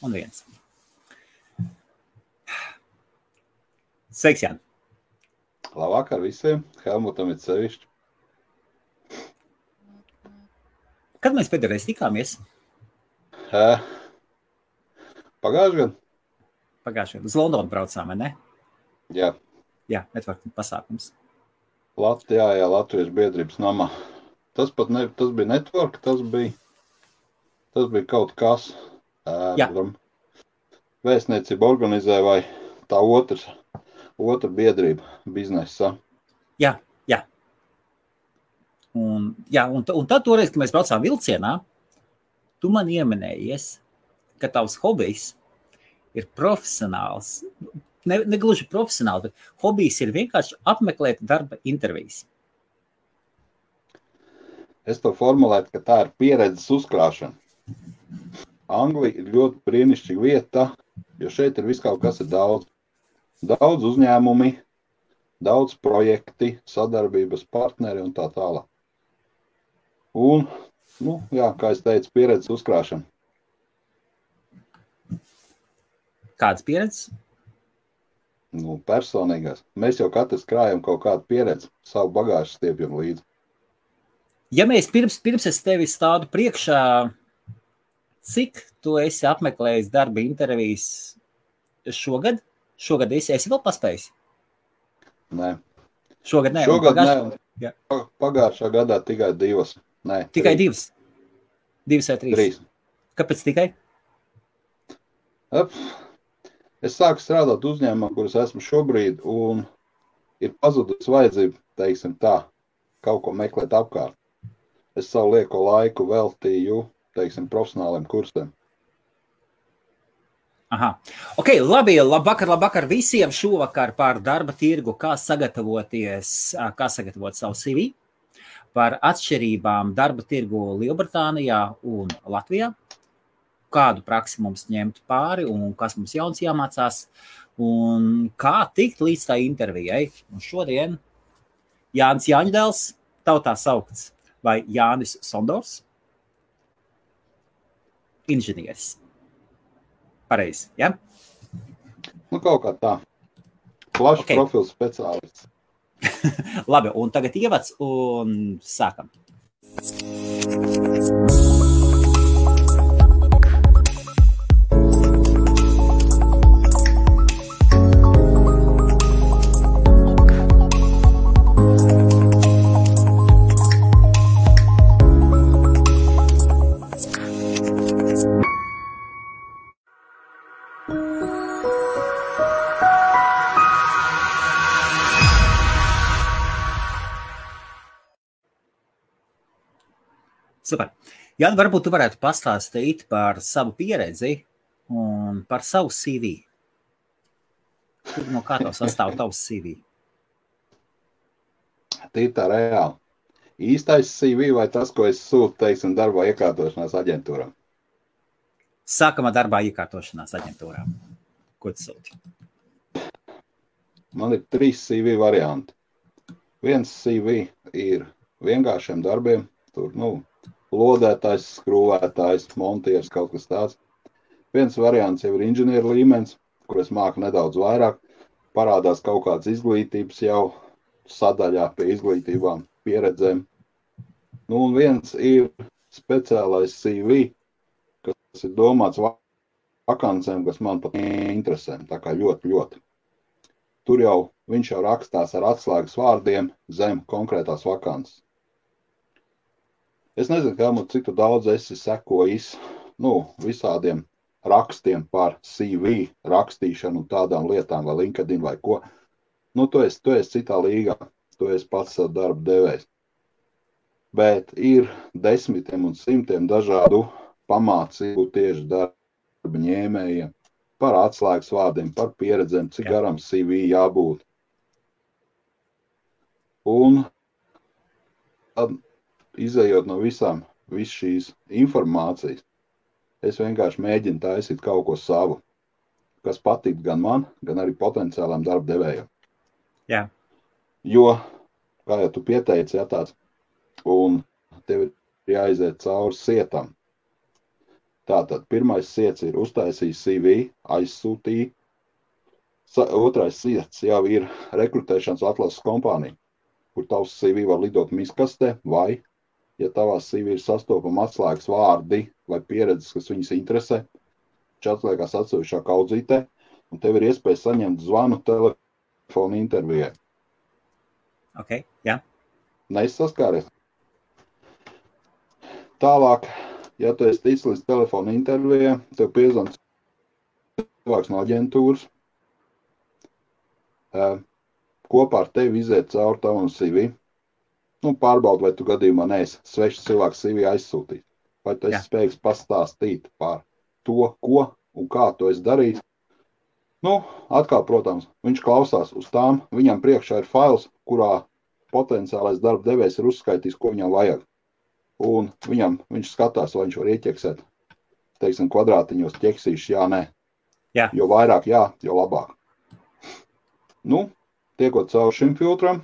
un 1. Sveiks, Jāni! Labvakar visiem, Helmutam ir sevišķi. Kad mēs pēdējais tikāmies? Pagājuši gadu? Pagājuši gadu. Uz Londonu braucām, vai ne? Jā. Jā, networking pasākums. Jā, Latvijas biedrības namā. Tas bija network, tas bija kaut kas. Vēstniecība organizē vai tā otra biedrība biznesa. Jā. Un tad toreiz, kad mēs braucām vilcienā, tu man ieminējies, ka tavs hobijs ir profesionāls. Ne gluži profesionāli, bet hobijs ir vienkārši apmeklēt darba intervijas. Es to formulētu, ka tā ir pieredzes uzkrāšana. Anglija ir ļoti brīnišķīga vieta, jo šeit ir viss kaut kas ir daudz. Daudz uzņēmumi, daudz projekti, sadarbības partneri un tā tālāk. Un, kā es teicu, pieredzes uzkrāšana. Kādas pieredzes? Personīgās. Mēs jau katrs krājam kaut kādu pieredzi, savu bagāžu stiepjam līdzi. Ja mēs pirms es tevi stādu priekšā, cik tu esi apmeklējis darba intervijas šogad? Šogad esi vēl paspējis? Nē. Šogad nē? Šogad nē. Pagājušā gadā tikai 2. Nē, tikai 2? 2 vai 3? 3. Kāpēc tikai? Es sāku strādāt uzņēmumā, kuras esmu šobrīd, un ir pazudus vajadzība, teiksim tā, kaut ko meklēt apkārt. Es savu lieko laiku veltīju, teiksim, profesionāliem kursiem. Aha. Ok, labi, labvakar visiem šovakar par darba tirgu, kā sagatavot savu CV, par atšķirībām darba tirgu Lielbritānijā un Latvijā, kādu praksi mums ņemt pāri un kas mums jauns jāmācās un kā tikt līdz tā intervijai. Un šodien Jānis Jāņdēls, tautā saukts, vai Jānis Sondors, inženieris. Pareizi, ja? Kaut kā tā. Plašs profils speciālists. Labi, un tagad ievads un sākam. Super. Jāni, varbūt tu varētu pastāstīt par savu pieredzi un par savu CV. No kā tev sastāv tavs CV? Tīri tā reāli. Īstais CV vai tas, ko es sūtu, teiksim, darbā iekārtošanās aģentūrām? Sākam ar darbā iekārtošanās aģentūrām. Ko tu sūti? Man ir 3 CV varianti. Viens CV ir vienkāršiem darbiem, tur, lodētājs, skrūvētājs, montieris, kaut kas tāds. Viens variants jau ir inženieru līmenis, kur es māku nedaudz vairāk. Parādās kaut kāds izglītības jau sadaļā pie izglītībām, pieredzēm. Un viens ir speciālais CV, kas ir domāts vakancēm, kas man pat interesē. Tā kā ļoti. Tur jau viņš jau rakstās ar atslēgas vārdiem zem konkrētās vakances. Es nezinu, Helmut, cik tu daudz esi sekojis visādiem rakstiem par CV rakstīšanu un tādām lietām, vai LinkedIn vai ko. Tu esi citā līgā, tu esi pats savu darbu devējs. Bet ir desmitiem un simtiem dažādu pamācību tieši darba ņēmējiem par atslēgas vārdiem, par pieredzēm, cik garam CV jābūt. Un tad, izējot no visu šīs informācijas, es vienkārši mēģinu taisīt kaut ko savu, kas patīk gan man, gan arī potenciālām darba devējiem. Jā. Jo, kā jau tu pieteici, tāds, un tev ir jāiziet cauri sietam. Tātad pirmais siets ir uztaisījis CV, aizsūtīja. Otrais siets jau ir rekrutēšanas atlases kompānija, kur tavs CV var lidot miskastē, vai, ja tavās CV ir sastopama atslēgas vārdi vai pieredzes, kas viņus interesē, viņš atliekās atsevišķā kaudzītē, un tev ir iespēja saņemt zvanu telefonu intervijai. Ok, jā. Neizsaskāries. Tālāk, ja tu esi ticis līdz telefonu intervijai, tev piezvan cilvēks no aģentūras, kopā ar tevi iziet cauri tavam CV, pārbaud, vai tu gadījumā neesi svešs cilvēks CV aizsūtīt, vai tu esi spējīgs pastāstīt par to, ko un kā tu esi darījis. Atkal, protams, viņš klausās uz tām, viņam priekšā ir fails, kurā potenciālais darba devējs ir uzskaitījis, ko viņam vajag. Un viņš skatās, vai viņš var ieķeksēt, teiksim, kvadrātiņos ķeksīšus, jā, nē. Jā. Jo vairāk jā, jo labāk. Tiekot cauri šim filtram,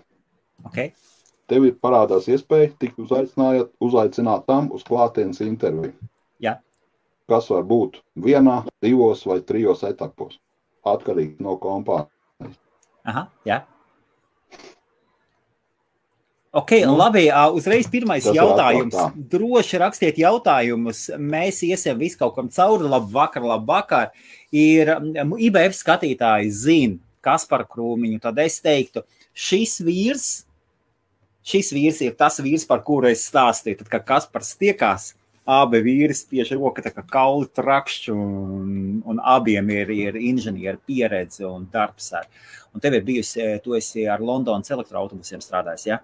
tev ir parādās iespēja tikt uzaicinātām uz klātienes interviju. Jā. Kas var būt 1, 2 vai 3 etapos, atkarīgi no kompānijas. Aha, jā. Ok, labi, uzreiz pirmais jautājums. Droši rakstiet jautājumus, mēs iesim visu kaut kam cauri, labvakar. Ir IBF skatītāji zina Kasparu Krūmiņu, tad es teiktu, šis vīrs ir tas vīrs, par kuru es stāstīju, tad, kad Kaspars tiekās, abi vīri spiež roka, tā kā kauli trakšķi, un abiem ir inženieri pieredze un darbs. Un tev ir bijusi, tu esi ar Londonas elektroautobusiem strādājis, ja?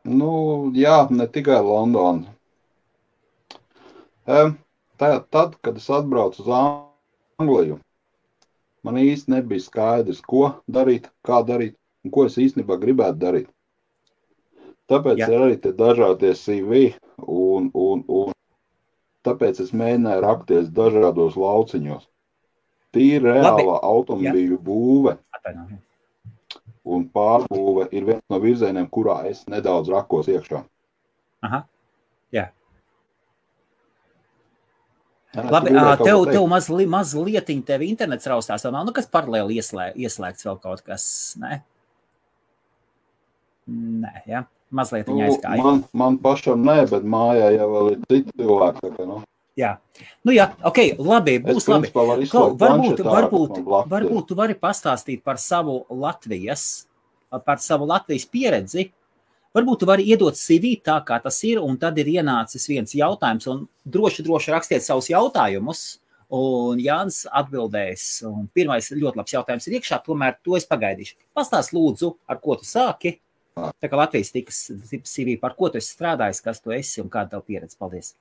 Jā, ne tikai Londona. Tad, kad es atbraucu uz Angliju, man īsti nebija skaidrs, ko darīt, kā darīt un ko es īstenībā gribētu darīt. Tāpēc ir arī te dažādie CV un tāpēc es mēģināju rakties dažādos lauciņos. Tīri reālā automobīļu būve un pārbūve ir viens no virzieniem, kurā es nedaudz rakos iekšā. Aha, jā. Labi, tev mazlietiņ tevi internets raustās, vēl nav, kas paralēli ieslēgts vēl kaut kas, ne? Nē, jā, mazlietiņ aizgāja. Man pašam nē, bet mājā jau vēl ir citi cilvēki, tā kā, Jā, jā, ok, labi, būs labi. Varbūt tu vari pastāstīt par savu Latvijas pieredzi. Varbūt tu vari iedot CV tā, kā tas ir, un tad ir ienācis viens jautājums, un droši rakstiet savus jautājumus, un Jānis atbildēs. Un pirmais ļoti labs jautājums ir iekšā, tomēr to es pagaidīšu. Pastāst lūdzu, ar ko tu sāki, tā kā Latvijas tikas CV, par ko tu esi strādājis, kas tu esi un kāda tev pieredze. Paldies!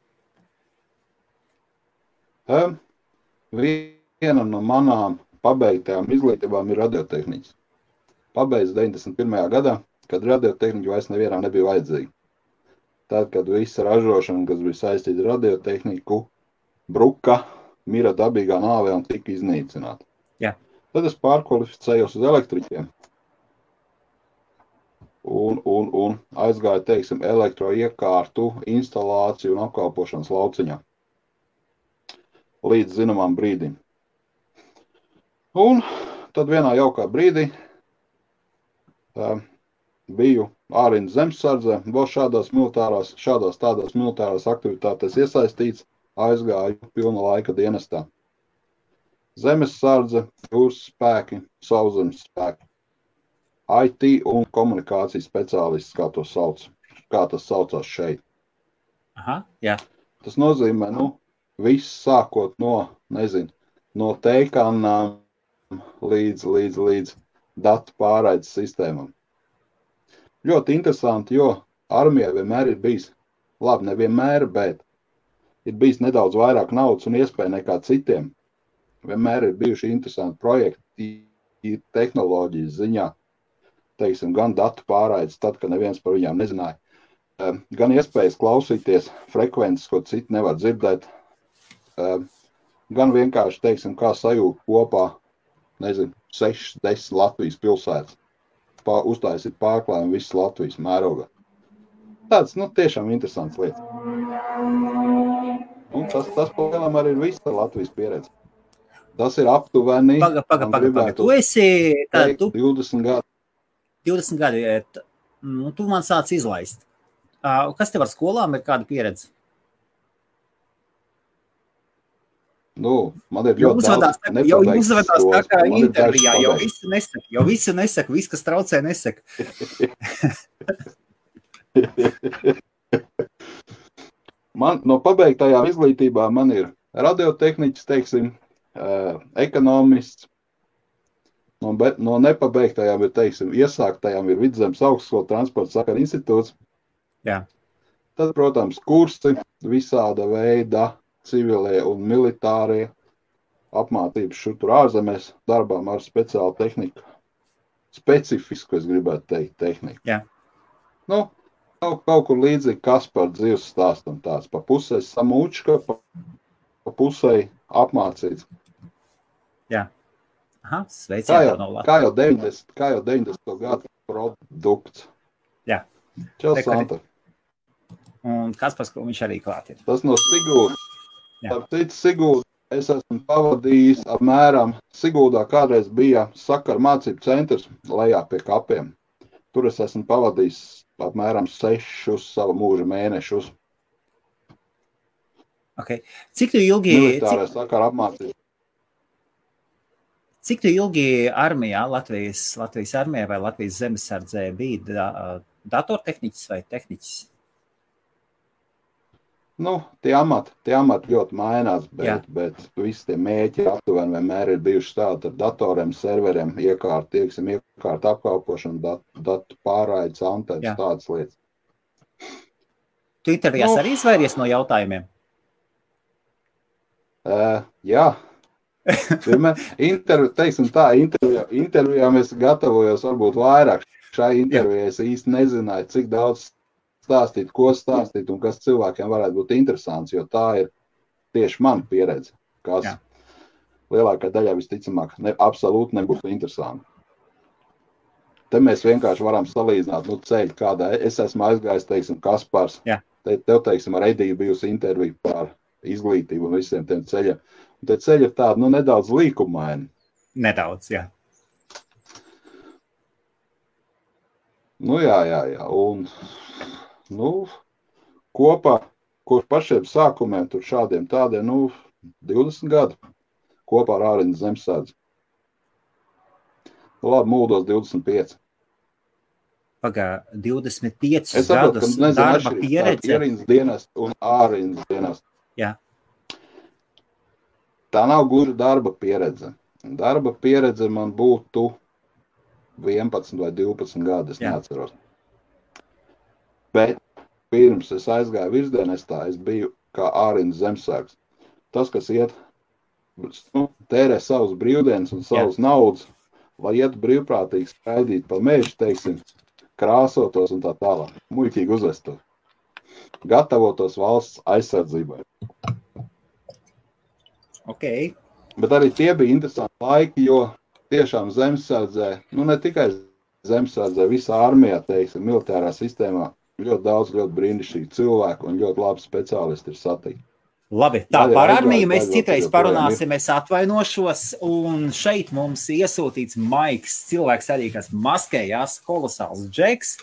Viena no manām pabeigtajām izglītībām ir radiotehniķis. Pabeidz 91. gadā, kad radiotehniķi vairs nevienam nebija vajadzīgi. Tad, kad visa ražošana, kas bija saistīta ar radiotehniku, bruka, mira dabīgā nāvē un tika iznīcināta. Jā. Tad es pārkvalificējos uz elektriķiem un aizgāju, teiksim, elektroiekārtu, instalāciju un apkalpošanas lauciņā. Līdz zināmām brīdim. Un tad vienā jaukā brīdī biju ārīnas zemesardzē, vēl šādās tādās militārās aktivitātēs iesaistīts, aizgāju pilna laika dienestā. Zemesardze, jūras spēki, sauszemes spēki, IT un komunikācijas speciālists, kā tas saucās šeit. Aha, jā. Tas nozīmē, viss sākot no teikanām līdz datu pārraides sistēmām. Ļoti interesanti, jo armijai vienmēr ir bijis, labi, nevienmēr, bet ir bijis nedaudz vairāk naudas un iespēja nekā citiem. Vienmēr ir bijuši interesanti projekti tehnoloģijas ziņā, teiksim, gan datu pārraides, tad, kad neviens par viņām nezināja, gan iespējas klausīties frekvences, ko citi nevar dzirdēt, gan vienkārši, teiksim, kā sajūt kopā, 6-10 Latvijas pilsētas, uztaisīt pārklājumu visas Latvijas mērogā. Tāds, tiešām interesants lietas. Un tas palielam arī ir visa Latvijas pieredze. Tas ir aptuveni, Paga. Tu esi, teikt, 20 gadi. 20 gadi, nu, tu man sāc izlaist. Kas tev ar skolām ir kāda pieredze? Nu, man ir ļoti daudz jau uzvedās tā kā intervijā, jau visu nesaka, viss, kas traucē, nesaka. Man no pabeigtajām izglītībām man ir radiotehniķis, teiksim, ekonomists. No nepabeigtajām ir, teiksim, iesāktajām ir Vidzemes augstskola transporta sakaru institūts. Jā. Tad, protams, kursi visāda veida civilie un militārie apmācības šur tur ārzemēs darbām ar speciālu tehniku. Specifisku, es gribētu teikt, tehniku. Jā. Nu, kaut kur līdzīgi Kaspar dzīves stāstam tāds. Pa pusē samūčka, pa pusē apmācīts. Jā. Aha, sveiciet no Latvijas. Kā jau 90. gadu produkts. Jā. Čau, Santa. Un Kaspars, ko viņš arī klāt ir. Tas no Sigūda. Ar citu Sigūdu es esmu pavadījis apmēram, Sigūdā kādreiz bija sakaru mācību centrs lejā pie kapiem. Tur es esmu pavadījis apmēram 6 savu mūža mēnešus. Okay. Cik tu ilgi... Militārā sakaru apmācību. Cik tu ilgi armijā, Latvijas armijā vai Latvijas zemesardzē bija datortehniķis vai tehniķis? Nu, tie amati ļoti mainās, bet visi tie mēķi aptuveni vienmēr ir bijuši tādi ar datoriem, serveriem, iekārt apkalpošanu, datu pārraides, antenas, tādas lietas. Tu intervijās arī izvairies no jautājumiem? Jā. Intervijām es gatavojos varbūt vairāk. Šai intervijai es īsti nezināju, cik daudz stāstīt, ko stāstīt un kas cilvēkiem varētu būt interesants, jo tā ir tieši mana pieredze, kas lielākā daļā visticamāk absolūti nebūtu interesanti. Te mēs vienkārši varam salīdzināt, ceļu, kādā es esmu aizgājis, teiksim, Kaspars. Tev, teiksim, ar Ediju bijusi intervija par izglītību un visiem tiem ceļiem. Un te ceļi ir tādi, nedaudz līkumaini. Nedaudz, jā. Jā. Un kopā, kur pašiem sākumiem, tur šādiem tādiem, 20 gadu kopā ar Ārindas zemesardzi. Labi, mūldos 25. Pagā, 25 gadus darba pieredze. Ārindas dienas un Ārindas dienas. Jā. Tā nav gluži darba pieredze. Darba pieredze man būtu 11 vai 12 gadi, es neatceros. Bet pirms es aizgāju virsdienestā, es biju kā Ārindas zemesargs. Tas, kas iet, tērē savus brīvdienas un savus naudas, lai iet brīvprātīgi skraidīt pa mežu, teiksim, krāsotos un tā tālāk. Muļķīgi uzvestos. Gatavotos valsts aizsardzībai. Okay. Bet arī tie bija interesanti laiki, jo tiešām zemesardzē, ne tikai zemesardzē, visā armijā, teiksim, militārā sistēmā, ļoti daudz, ļoti brīnišķīgi cilvēku un ļoti labi speciālisti ir satikti. Labi, tā par armiju mēs citreiz parunāsim, es atvainošos, un šeit mums iesūtīts Maiks, cilvēks arī, kas maskējās, kolosāls džeks,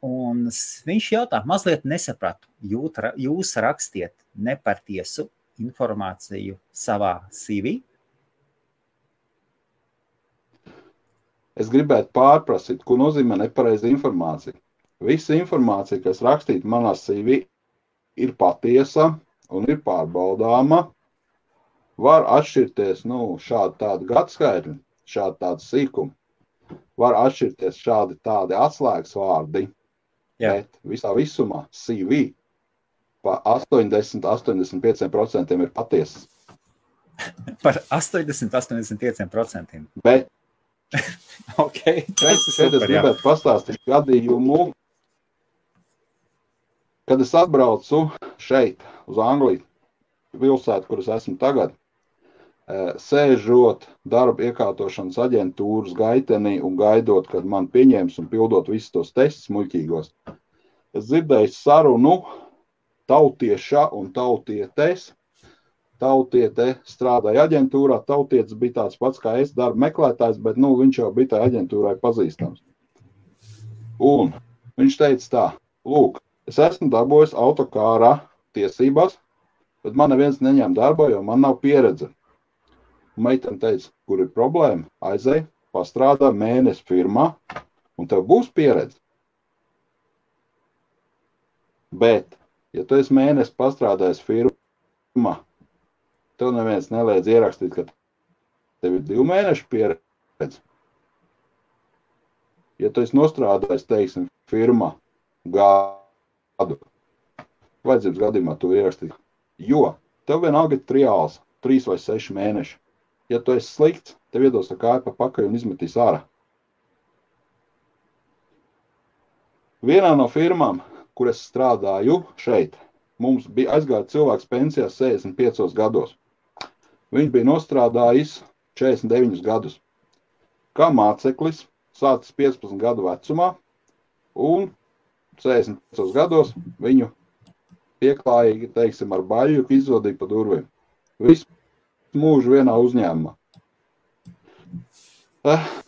un viņš jautā, mazliet nesapratu, jūs rakstiet nepatiesu informāciju savā CV? Es gribētu pārprasīt, ko nozīmē nepareiza informācija. Visa informācija, kas rakstīta manā CV, ir patiesa un ir pārbaudāma. Var atšķirties šādi tādi gadskaitļi, šādi tādi sīkumi. Var atšķirties šādi tādi atslēgas vārdi, bet visā visumā CV pa 80-85% ir patiesas. Par 80-85%? Bet okay, šeit es gribētu pastāstīt gadījumu, kad es atbraucu šeit uz Angliju, pilsētu, kur es esmu tagad, sēžot darba iekārtošanas aģentūras gaitenī un gaidot, kad man pieņems un pildot visus tos testus muļķīgos. Es dzirdēju sarunu tautieša un tautietes. Tautiete strādāja aģentūrā, tautietis bija tāds pats kā es, darba meklētājs, bet viņš jau bija tā aģentūrai pazīstams. Un viņš teica tā, lūk, es esmu dabūjis autokārā tiesībās, bet man neviens neņem darba, jo man nav pieredze. Un meitene teica, kur ir problēma, aizej, pastrādā mēnesi firmā, un tev būs pieredze. Bet, ja tu esi mēnesi pastrādājis firmā, tev neviens neliedz ierakstīt, ka tev ir 2 mēnešu pieredze. Ja tu esi nostrādājis, teiksim, firmā gadu, vajadzības gadījumā tu ierakstīt, jo tev vienalga ir triāls, 3 vai 6 mēneši. Ja tu esi slikts, tev iedos ar kāju pa pakaļ un izmetīs ārā. Vienā no firmām, kur es strādāju šeit, mums bija aizgāja cilvēks pensijās 65 gados. Viņš bija nostrādājis 49 gadus. Kā māceklis, sācis 15 gadu vecumā, un 65 gados viņu pieklājīgi, teiksim, ar baļu izvadīja pa durvīm. Visu mūžu vienā uzņēmumā.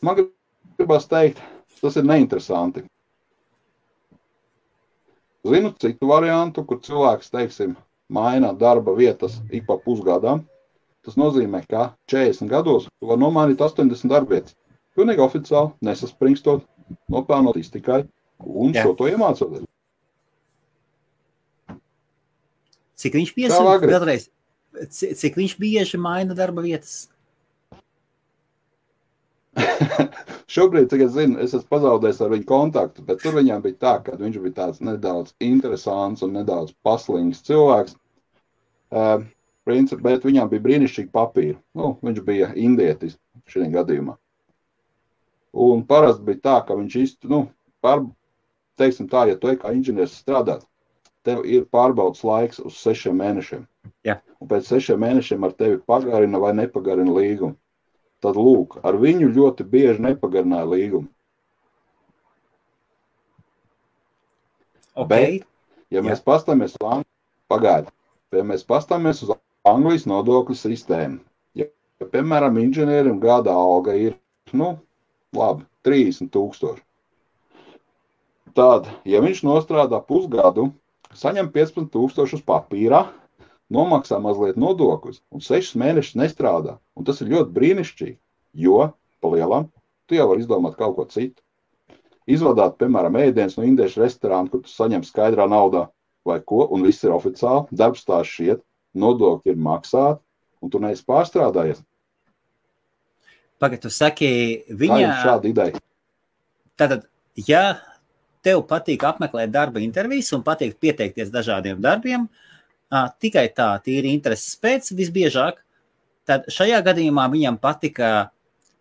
Man gribas teikt, tas ir neinteresanti. Zinu citu variantu, kur cilvēks, teiksim, maina darba vietas ik pa pusgadām. Tas nozīmē, ka 40 gados tu var nomainīt 80 darbvietas. Pilnīgi oficiāli, nesasprinkstot, nopelnot tikai un šo to iemācoties. Cik viņš vēlreiz, cik viņš bieži maina darba vietas? Šobrīd, cik es zinu, es esmu pazaudējis ar viņu kontaktu, bet tur viņam bija tā, ka viņš bija tāds nedaudz interesants un nedaudz paslīgs cilvēks. Bet viņam bija brīnišķīgi papīri. Viņš bija indietis šajā gadījumā. Un parasti bija tā, ka viņš teiksim tā, ja tu kā inženieris strādāt, tev ir pārbaudas laiks uz 6 mēnešiem. Jā. Un pēc 6 mēnešiem ar tevi pagarina vai nepagarina līgumu. Tad lūk, ar viņu ļoti bieži nepagarināja līgumu. Okay. Bet, ja mēs pastāmies uz Anglijas nodokļu sistēmu, ja piemēram, inženierim gada alga ir, labi, 30 000. Tad, ja viņš nostrādā pusgadu, saņem 15 000 uz papīrā, nomaksā mazliet nodokļus un 6 mēnešus nestrādā. Un tas ir ļoti brīnišķīgi, jo, pa lielam, tu jau vari izdomāt kaut ko citu. Izvadāt, piemēram, ēdienas no indiešu restorāna, kur tu saņem skaidrā naudā vai ko, un viss ir oficiāli, darbstās šiet, nodokļi ir maksāti, un tu neesi pārstrādājies. Pagad, tu saki, Tā ir šāda ideja. Tātad, ja tev patīk apmeklēt darba intervijas un patīk pieteikties dažādiem darbiem, tikai tā, tīri intereses pēc visbiežāk, tad šajā gadījumā viņam patika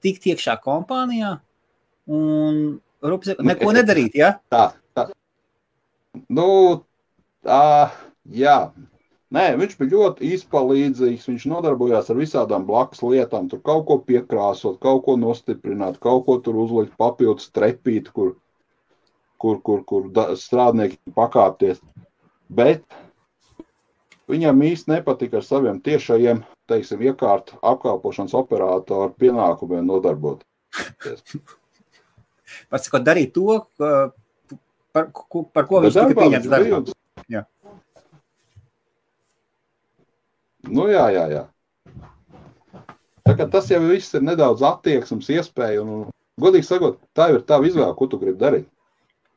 tikt iekšā kompānijā un neko nedarīt, ja? Tā. Jā. Nē, viņš bija ļoti izpalīdzīgs, viņš nodarbojās ar visādām blakus lietām, tur kaut ko piekrāsot, kaut ko nostiprināt, kaut ko tur uzlikt papildus trepīt, kur strādnieki pakāpties. Bet viņam īsti nepatika ar saviem tiešajiem, teiksim, iekārtu apkalpošanas operātoru pienākumiem nodarboties. Pasakot, darīt to, par ko viņš tika pieņemts darbā. Jā. Jā. Tā kā tas jau viss ir nedaudz attieksmes iespēja, un godīgi sakot, tā ir tava izvēle, ko tu gribi darīt.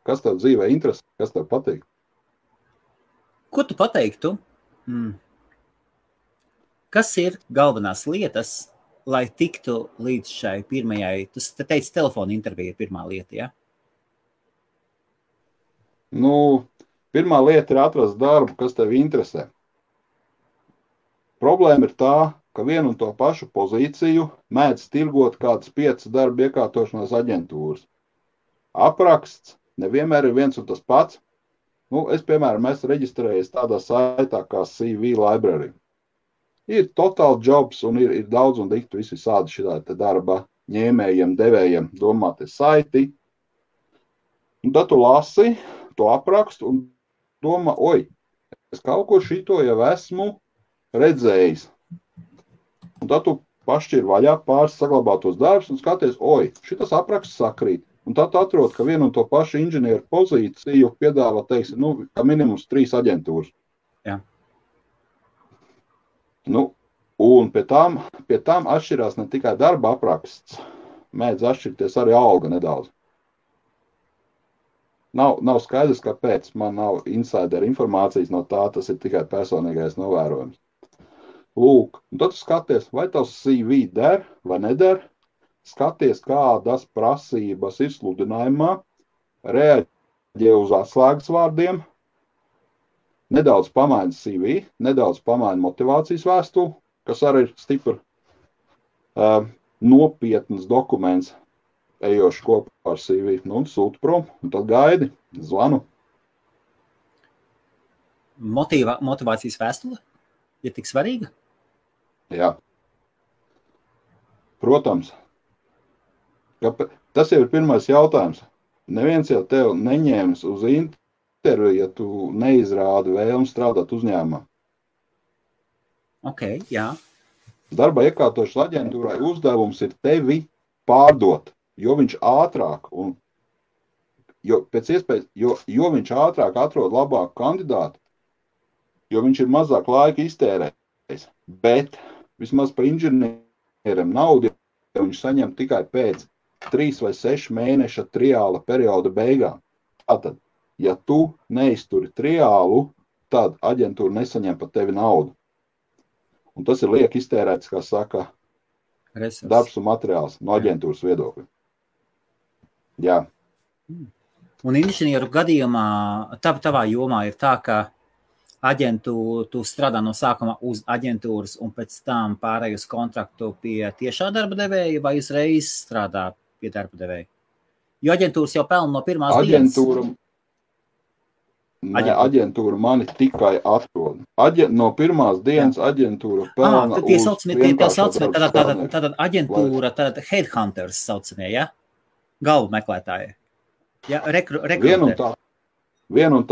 Kas tev dzīvē interesē, kas tev patīk? Ko tu pateiktu? Kas ir galvenās lietas, lai tiktu līdz šai pirmajai, tu teici, telefona intervija ir pirmā lieta, ja? Pirmā lieta ir atrast darbu, kas tev interesē. Problēma ir tā, ka vienu un to pašu pozīciju mēdz tirgot kādas 5 darba iekārtošanās aģentūras. Apraksts nevienmēr ir viens un tas pats. Es, piemēram, esmu reģistrējies tādā saitā kā CV Library. Ir Total Jobs un ir daudz un diktu visi sādi šitā darba ņēmējiem, devējiem domāti saiti. Un tad tu lasi to aprakstu un domā, es kaut ko šito jau esmu redzējis. Un tad tu pašķir vaļā pāris saglabātos darbus un skaties, šitas apraksts sakrīt. Un tad tu atrod, ka vienu un to pašu inženieru pozīciju piedāvā, teiksim, kā minimums 3 aģentūras. Jā. Un pie tām atšķirās ne tikai darba apraksts, mēdz atšķirties arī alga nedaudz. Nav skaidrs, kāpēc. Man nav insider informācijas no tā, tas ir tikai personīgais novērojums. Lūk, un tad tu skaties, vai tavs CV der vai neder, skaties, kādas prasības ir sludinājumā, reaģē uz atslēgas vārdiem, nedaudz pamaina CV, nedaudz pamaina motivācijas vēstuli, kas arī ir stipri nopietnas dokuments, ejoši kopā ar CV, un sūti prom, un tad gaidi, zvanu. Motivācijas vēstule ir tik svarīga? Jā. Protams. Tas jau ir pirmais jautājums. Neviens jau tev neņēmis uz interviju, ja tu neizrādi vēlmi strādāt uzņēmumā. Ok, jā. Darba iekārtošanas aģentūrai uzdevums ir tevi pārdot, jo viņš ātrāk pēc iespējas, jo viņš ātrāk atrod labāku kandidātu, jo viņš ir mazāk laika iztērējis. Bet vismaz pa inženierim naudu viņš saņem tikai pēc 3 vai 6 mēneša triāla perioda beigām. Tātad, ja tu neizturi triālu, tad aģentūra nesaņem par tevi naudu. Un tas ir liek iztērēts, kā saka, darbs un materiāls no aģentūras viedokļa. Jā. Un inženieru gadījumā, tavā jomā ir tā, ka tu strādā no sākuma uz aģentūras un pēc tam pārēj uz kontraktu pie tiešā darba devēja vai uzreiz strādā pie darba devēja? Jo aģentūras jau pelna no pirmās dienas. Aģentūra mani tikai atrod. No pirmās dienas aģentūra pelna uz vienkāršo darbu. Tātad aģentūra, tātad headhunters saucamie, ja? Galvu meklētāji. Ja, rekrutē. Viena un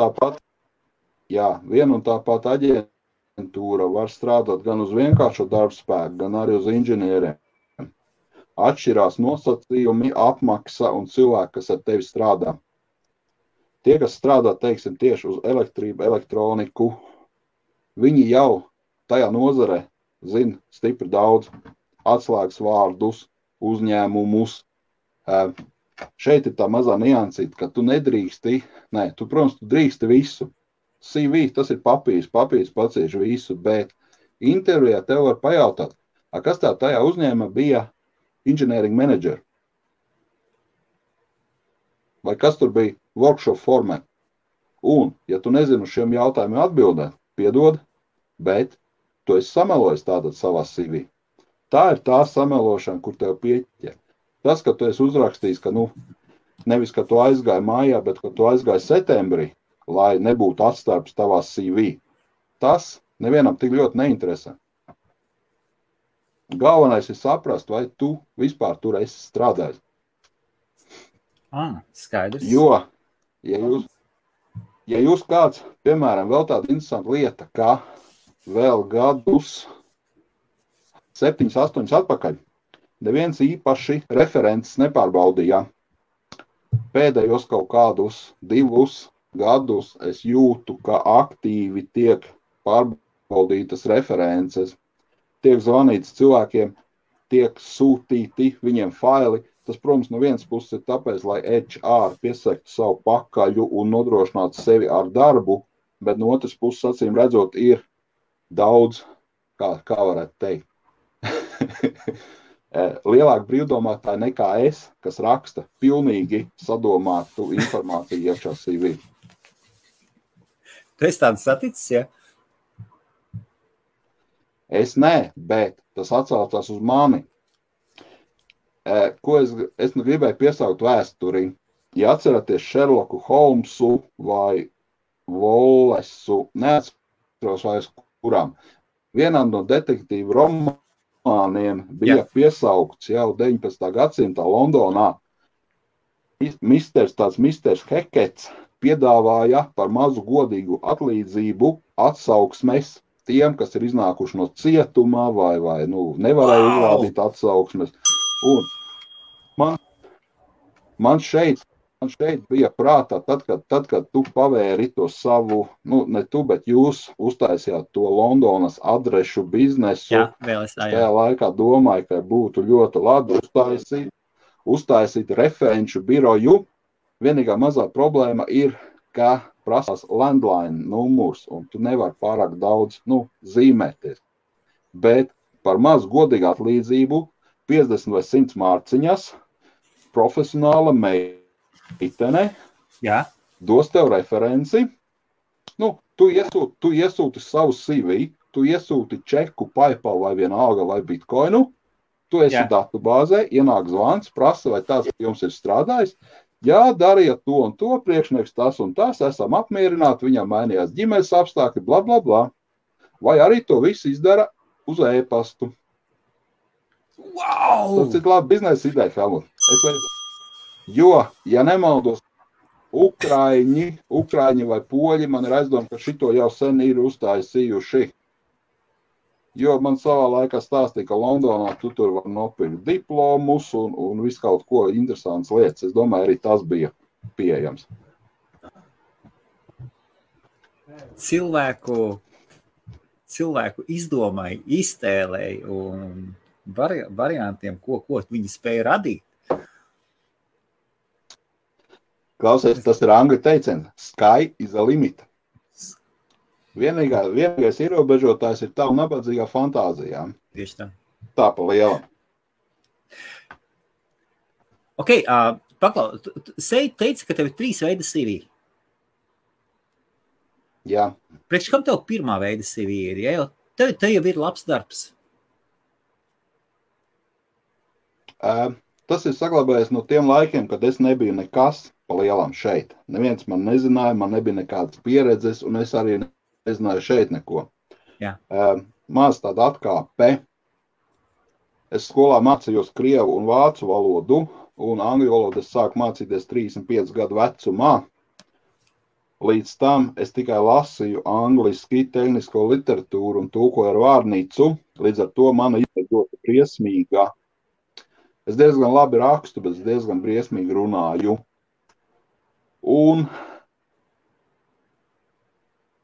tā pat aģentūra var strādāt gan uz vienkāršo darbspēku, gan arī uz inženieriem. Atšķirās nosacījumi, apmaksa un cilvēki, kas ar tevi strādā. Tie, kas strādā, teiksim, tieši uz elektrību, elektroniku, viņi jau tajā nozarē zina stipri daudz atslēgas vārdus, uzņēmumus. Šeit ir tā mazā niansīta, ka tu nedrīksti, tu drīksti visu. CV, tas ir papīrs pacieši visu, bet intervijā tev var pajautāt, kas tā tajā uzņēmumā bija engineering manager? Vai kas tur bija workshop formē? Un, ja tu nezini uz šiem jautājumiem atbildēt, piedod, bet tu esi samelojis tātad savā CV. Tā ir tā samelošana, kur tev pieķer. Tas, ka tu esi uzrakstījis, ka nevis, ka tu aizgāji mājā, bet ka tu aizgāji septembrī, lai nebūtu atstarps tavā CV. Tas nevienam tik ļoti neinteresē. Galvenais ir saprast, vai tu vispār tur esi strādājis. Skaidrs. Jo, ja jūs kāds, piemēram, vēl tāda interesanta lieta, ka vēl gadus 7, 8 atpakaļ neviens īpaši referents nepārbaudīja. Pēdējos kaut kādus 2 gadus es jūtu, ka aktīvi tiek pārbaudītas references, tiek zvanīts cilvēkiem, tiek sūtīti viņiem faili. Tas, protams, no vienas puses ir tāpēc, lai HR piesaktu savu pakaļu un nodrošinātu sevi ar darbu, bet no otras puses, acīm redzot, ir daudz, kā varētu teikt, lielāka brīvdomātāja nekā es, kas raksta pilnīgi sadomātu informāciju iekšā CV. Tu esi tāds saticis, ja? Es nē, bet tas atsaucās uz mani. Ko es gribēju piesaukt vēsturi. Ja atceraties Sherlocku Holmesu vai Wallesu, neatceros vairs kurām, vienam no detektīvu romāniem bija piesaukts jau 19. gadsimtā Londonā. Misters Hekets piedāvāja par mazu godīgu atlīdzību atsauksmes tiem, kas ir iznākuši no cietuma vai nevarēja uzrādīt atsauksmes. Un man šeit bija prātā, tad, kad tu pavēri to savu, ne tu, bet jūs uztaisījāt to Londonas adrešu biznesu. Jā, vēl es tajā laikā domāju, ka būtu ļoti labi uztaisīt referenču biroju. Vienīgā mazā problēma ir, ka prasās landline numurs, un tu nevari pārāk daudz zīmēties. Bet par mazu godīgu atlīdzību 50 vai 100 mārciņas profesionāla meitene dos tev referenci. Tu iesūti savu CV, tu iesūti čeku, PayPal vai vienalga vai Bitcoinu, tu esi datu bāzē, ienāk zvans, prasa, vai tāds jums ir strādājis. Jā, dariet to un to, priekšnieks tas un tas, esam apmierināti, viņam mainījās ģimenes apstākļi, bla, bla, bla. Vai arī to visu izdara uz e-pastu. Wow! Tas ir labi biznesa ideja, Helmut. Jo, ja nemaldos, Ukraiņi vai poļi, man ir aizdomā, ka šito jau sen ir uztaisījuši. Jo man savā laikā stāstīja, ka Londonā tu tur var nopirkt diplomus un visu kaut ko interesants lietas. Es domāju, arī tas bija pieejams. Cilvēku izdomai, iztēlēji un variantiem, ko viņi spēja radīt. Klausies, tas ir angļu teiciens. Sky is the limit. Vienīgais ierobežotājs ir tava nabadzīgā fantāzijā. Tieši tā. Tā pa lielam. Ok, paklau, teici, ka tev ir 3 veidi CV. Jā. Priekš kam tev pirmā veida CV ir? Ja? Tev jau ir labs darbs. Tas ir saglabājies no tiem laikiem, kad es nebiju nekas pa lielam šeit. Neviens man nezināja, man nebija nekādas pieredzes, un es arī nezināju šeit neko. Maz tāda atkāpe. Es skolā mācījos krievu un vācu valodu, un angļu valodu es sāku mācīties 35 gadu vecumā. Līdz tam es tikai lasīju angliski tehnisko literatūru un tulkoju ar vārnīcu. Līdz ar to mana izveidota briesmīga. Es diezgan labi rakstu, bet es diezgan briesmīgi runāju. Un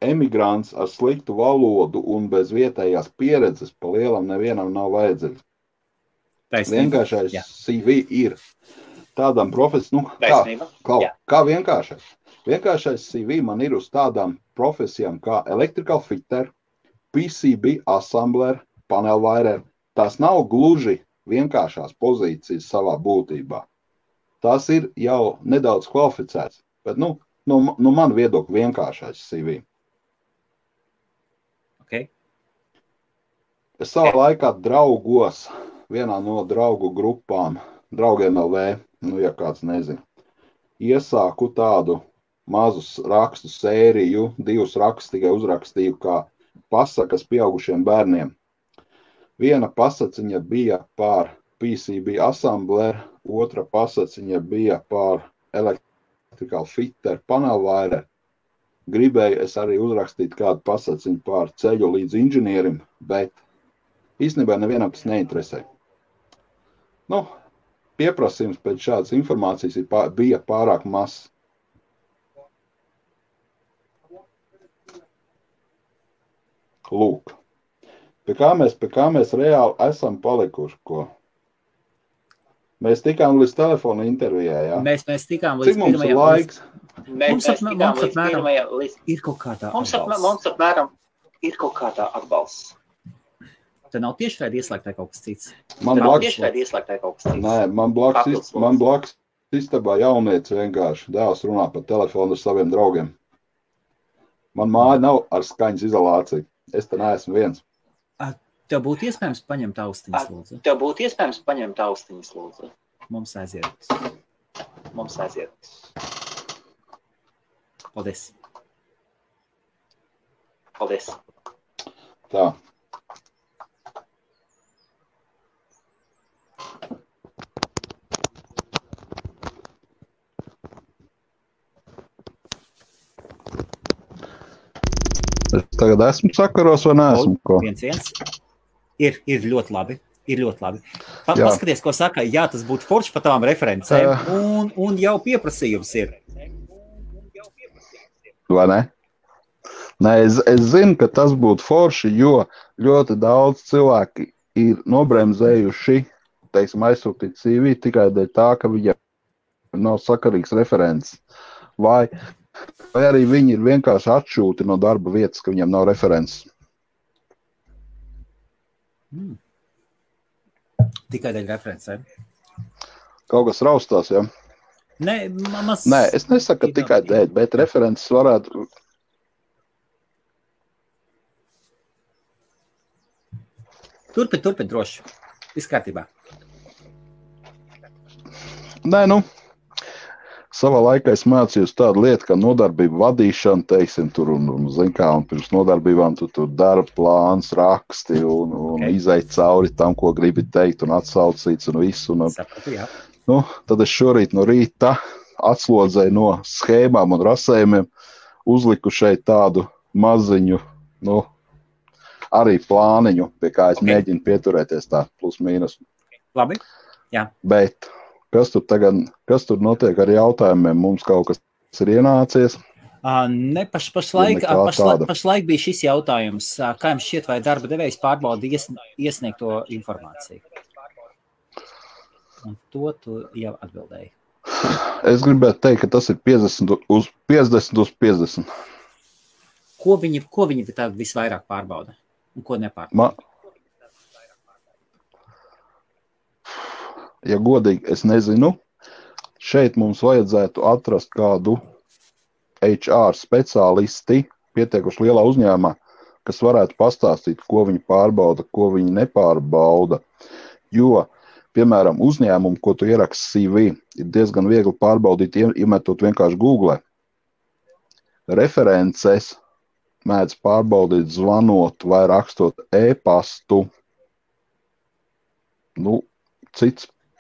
emigrants ar sliktu valodu un bez vietējās pieredzes pa lielam nevienam nav vajadzīgs. Vienkāršais CV ir tādām profesijām, kā vienkāršais. Vienkāršais CV man ir uz tādām profesijām kā electrical fitter, PCB assembler, panel wirer. Tas nav gluži vienkāršās pozīcijas savā būtībā. Tas ir jau nedaudz kvalificēts, bet no man viedokļa vienkāršais CV. Okay. Es savā laikā draugos, vienā no draugu grupām, draugiem LV, ja kāds nezina, iesāku tādu mazu rakstu sēriju, 2 rakstus tikai uzrakstīju kā pasakas pieaugušiem bērniem. Viena pasaciņa bija par PCB assembler, otra pasaciņa bija par electrical fitter, panel wirer. Gribēju es arī uzrakstīt kādu pasaciņu par ceļu līdz inženierim, bet īstenībā nevienam tas neinteresē. Pieprasījums pēc šādas informācijas bija pārāk mazs. Lūk. Pie kā mēs reāli esam palikuši, ko? Mēs tikām līdz telefona intervijai, jā? Mēs tikām līdz pirmajam. Cik mums ir laiks? Ir kaut kādā atbalsts. Mums apmēram ir kaut kādā atbalsts. Te nav tiešraidi ieslēgtā kaut kas cits. Nē, man blakus istabā jaunietis vienkārši dēls runā pa telefonu ar saviem draugiem. Man māja nav ar skaņas izolāciju. Es te neesmu viens. Tev būtu iespējams paņemt austiņas, lūdzu? Mums aiziet. Paldies. Tā. tagad esmu sakaros vai neesmu? Ko? 1-1. Ir ļoti labi. Paskaties, ko saka. Jā, tas būtu forši par tām referencēm. Un jau pieprasījums ir. Vai ne? Nē, es zinu, ka tas būtu forši, jo ļoti daudz cilvēki ir nobremzējuši, teiksim, aizsūtīt CV tikai dēļ tā, ka viņam nav sakarīgs referents. Vai arī viņi ir vienkārši atšūti no darba vietas, ka viņam nav referents. Tikai dēļ referencēm. Kaut kas raustās, ja? Nē, es nesaku, ka tikai dēļ, bet referents varētu... Turpin droši. Viss kārtībā. Nē, savā laikā es mācījos tādu lietu, kā nodarbību vadīšana, teiksim, tur un zin kā, un pirms nodarbībām tu tur darba plāns, raksti un izeit cauri tam, ko gribi teikt un atsaucīts un visu. Sapratu, jā. Tad es šorīt no rīta atslodzēju no schēmām un rasējumiem, uzliku šeit tādu maziņu, arī plāniņu, pie kā es mēģinu pieturēties tā plus mīnus. Labi, jā. Bet kas tur notiek ar jautājumiem? Mums kaut kas ir ienācies? Ne, pašlaik bija šis jautājums. Kā jums šķiet, vai darba devējs pārbauda iesniegto informāciju? Un to tu jau atbildēji. Es gribētu teikt, ka tas ir 50 uz 50. Ko viņi tā visvairāk pārbauda? Un ko nepārbauda? Ja godīgi, es nezinu. Šeit mums vajadzētu atrast kādu HR speciālisti pietiekuši lielā uzņēmumā, kas varētu pastāstīt, ko viņi pārbauda, ko viņi nepārbauda. Jo, piemēram, uzņēmumu, ko tu ieraksti CV, ir diezgan viegli pārbaudīt, iemetot vienkārši Google. References mēdz pārbaudīt zvanot vai rakstot e-pastu.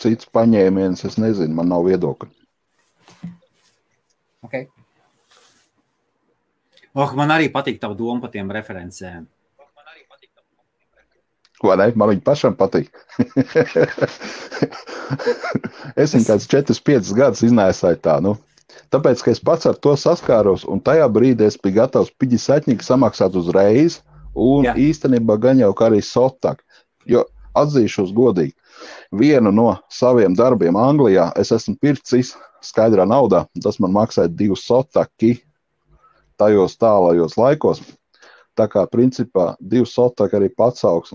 Cits paņēmiens, es nezinu, man nav viedokļa. Okay. Man arī patīk tavu domu par tiem referencēm. Vai ne? Man viņi pašam patīk. Es viņu kāds 4-5 gadus iznēsāju tā, Tāpēc, ka es pats ar to saskāros, un tajā brīdī es biju gatavs piģisatņīgi samaksāt uzreiz, un īstenībā gan jau kā arī sotak. Jo atzīšos godīgi, vienu no saviem darbiem Anglijā es esmu pircis skaidrā naudā, tas man maksāja 2 sotaki tajos tālajos laikos. Tā kā principā 2 sotaki arī pats augs.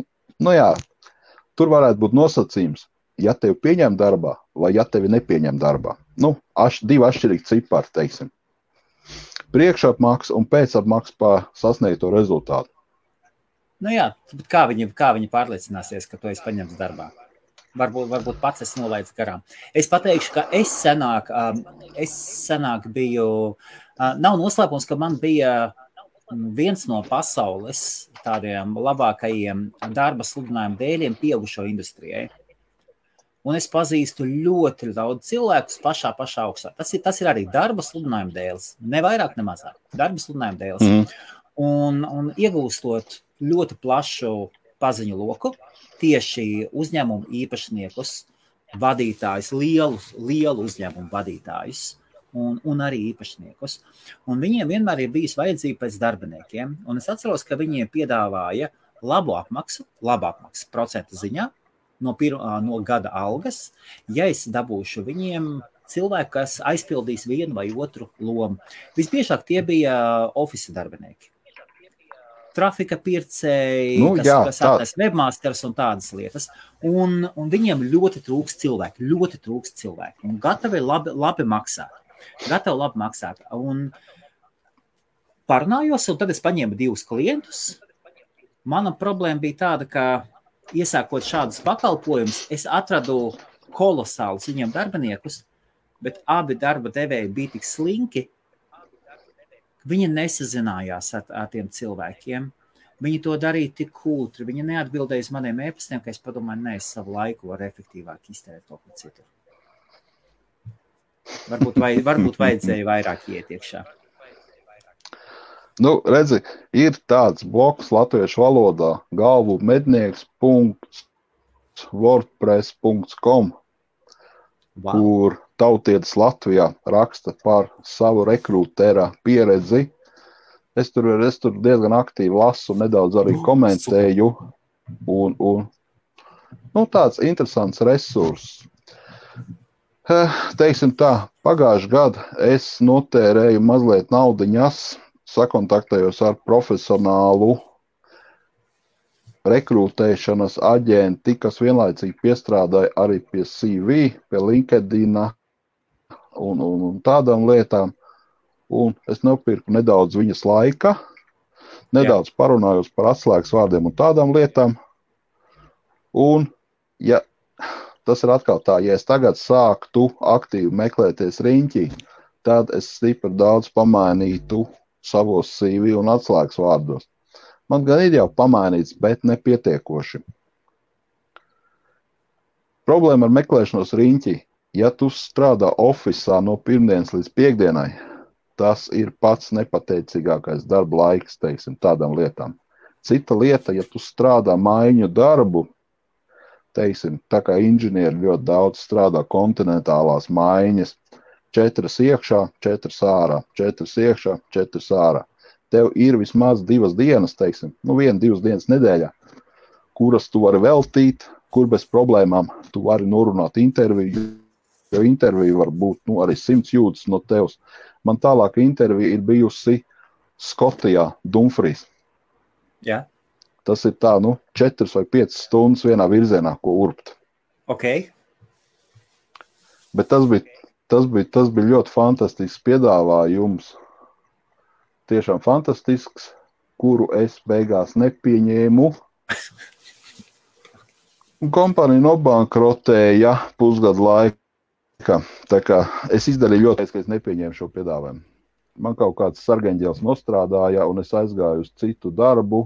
Tur varētu būt nosacījums, ja tevi pieņem darbā vai ja tevi nepieņem darbā. 2 atšķirīgi cipari, teiksim. Priekšapmaksa un pēcapmaksa par sasniegto rezultātu. Bet kā viņi pārliecināsies, ka tu esi paņemts darbā? Varbūt pats es nolaidu garām. Es pateikšu, ka es senāk biju, nav noslēpums, ka man bija viens no pasaules tādiem labākajiem darba sludinājumu dēļiem pieaugušo industrijai. Un es pazīstu ļoti daudz cilvēkus pašā augstā. Tas ir arī darba sludinājuma dēls. Ne vairāk, ne mazāk. Darba sludinājuma dēls. Un iegūstot ļoti plašu paziņu loku, tieši uzņēmumu īpašniekus, vadītājus, lielu uzņēmumu vadītājus un arī īpašniekus. Un viņiem vienmēr ir bijis vajadzība pēc darbiniekiem. Un es atceros, ka viņiem piedāvāja labu apmaksu procentu ziņā, no gada algas, ja es dabūšu viņiem cilvēku, kas aizpildīs vienu vai otru lomu. Visbiežāk tie bija ofisa darbinieki. Trafika pircēji, kas atnes webmasters un tādas lietas. Un viņiem ļoti trūkst cilvēki. Un gatavi labi maksāt. Un parunājos, un tad es paņēmu 2 klientus. Mana problēma bija tāda, ka iesākot šādus pakalpojumus, es atradu kolosālus viņiem darbiniekus, bet abi darba devēji bija tik slinki, viņi nesazinājās ar tiem cilvēkiem. Viņi to darīja tik kūtri, viņi neatbildēja uz maniem e-pastiem, ka es padomāju, es savu laiku varu efektīvāk iztērēt to par citu. Varbūt vajadzēja vairāk iet iekšā. Nu, redzi, ir tāds bloks latviešu valodā galvumednieks.wordpress.com, kur tautietis Latvijā raksta par savu rekrūtera pieredzi. Es tur diezgan aktīvi lasu, nedaudz arī komentēju. Un tāds interesants resurss. Teiksim tā, pagājušajā gadā es notērēju mazliet naudiņas, sakontaktējos ar profesionālu rekrūtēšanas aģenti, kas vienlaicīgi piestrādāja arī pie CV, pie LinkedIn un tādām lietām. Un es nopirku nedaudz viņas laika, nedaudz parunājos par atslēgas vārdiem un tādām lietām. Un, ja tas ir atkal tā, ja es tagad sāktu aktīvi meklēties riņķī, tad es stipri daudz pamainītu savos CV un atslēgas vārdos. Man gan ir jau pamainīts, bet nepietiekoši. Problēma ar meklēšanos riņķī. Ja tu strādā ofisā no pirmdienas līdz piekdienai, tas ir pats nepateicīgākais darba laiks, teiksim, tādām lietām. Cita lieta, ja tu strādā maiņu darbu, teiksim, tā kā inženieri ļoti daudz strādā kontinentālās maiņas, 4 iekšā, 4 ārā, 4 iekšā, 4 ārā. Tev ir vismaz 2 dienas, teiksim, 1-2 dienas nedēļā, kuras tu vari veltīt, kur bez problēmām tu vari norunāt interviju, jo intervija var būt arī 100 jūdzes no tevs. Man tālāk intervija ir bijusi Skotijā, Dumfries. Jā. Tas ir tā, 4 vai 5 stundas vienā virzienā, ko urbt. Ok. Bet tas bija ļoti fantastisks piedāvājums. Tiešām fantastisks, kuru es beigās nepieņēmu. Un kompānija nobankrotēja pusgadu laika. Tā kā es izdarīju ļoti, ka es nepieņēmu šo piedāvājumu. Man kaut kāds sargeņģēls nostrādāja, un es aizgāju uz citu darbu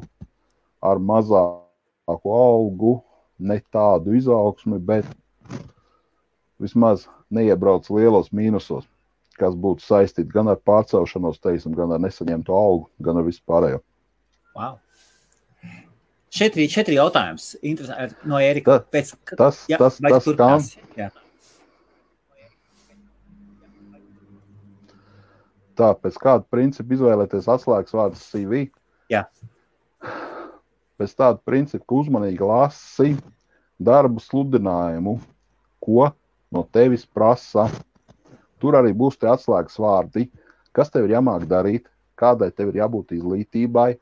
ar mazāku algu, ne tādu izaugsmi, bet vismaz neiebrauc lielos mīnusos, kas būtu saistīti gan ar pārcelšanos, teiksim, gan ar nesaņemtu algu, gan ar visu pārējo. Wow. 4 jautājums. No Ērika. Tas kam? Jā. Tā, pēc kāda principa izvēlēties atslēgas vārdus CV? Jā. Pēc tāda principa, ka uzmanīgi lasi darbu sludinājumu, ko no tevis prasa. Tur arī būs tie atslēgas vārdi, kas tev ir jāmāk darīt, kādai tev ir jābūt izglītībai,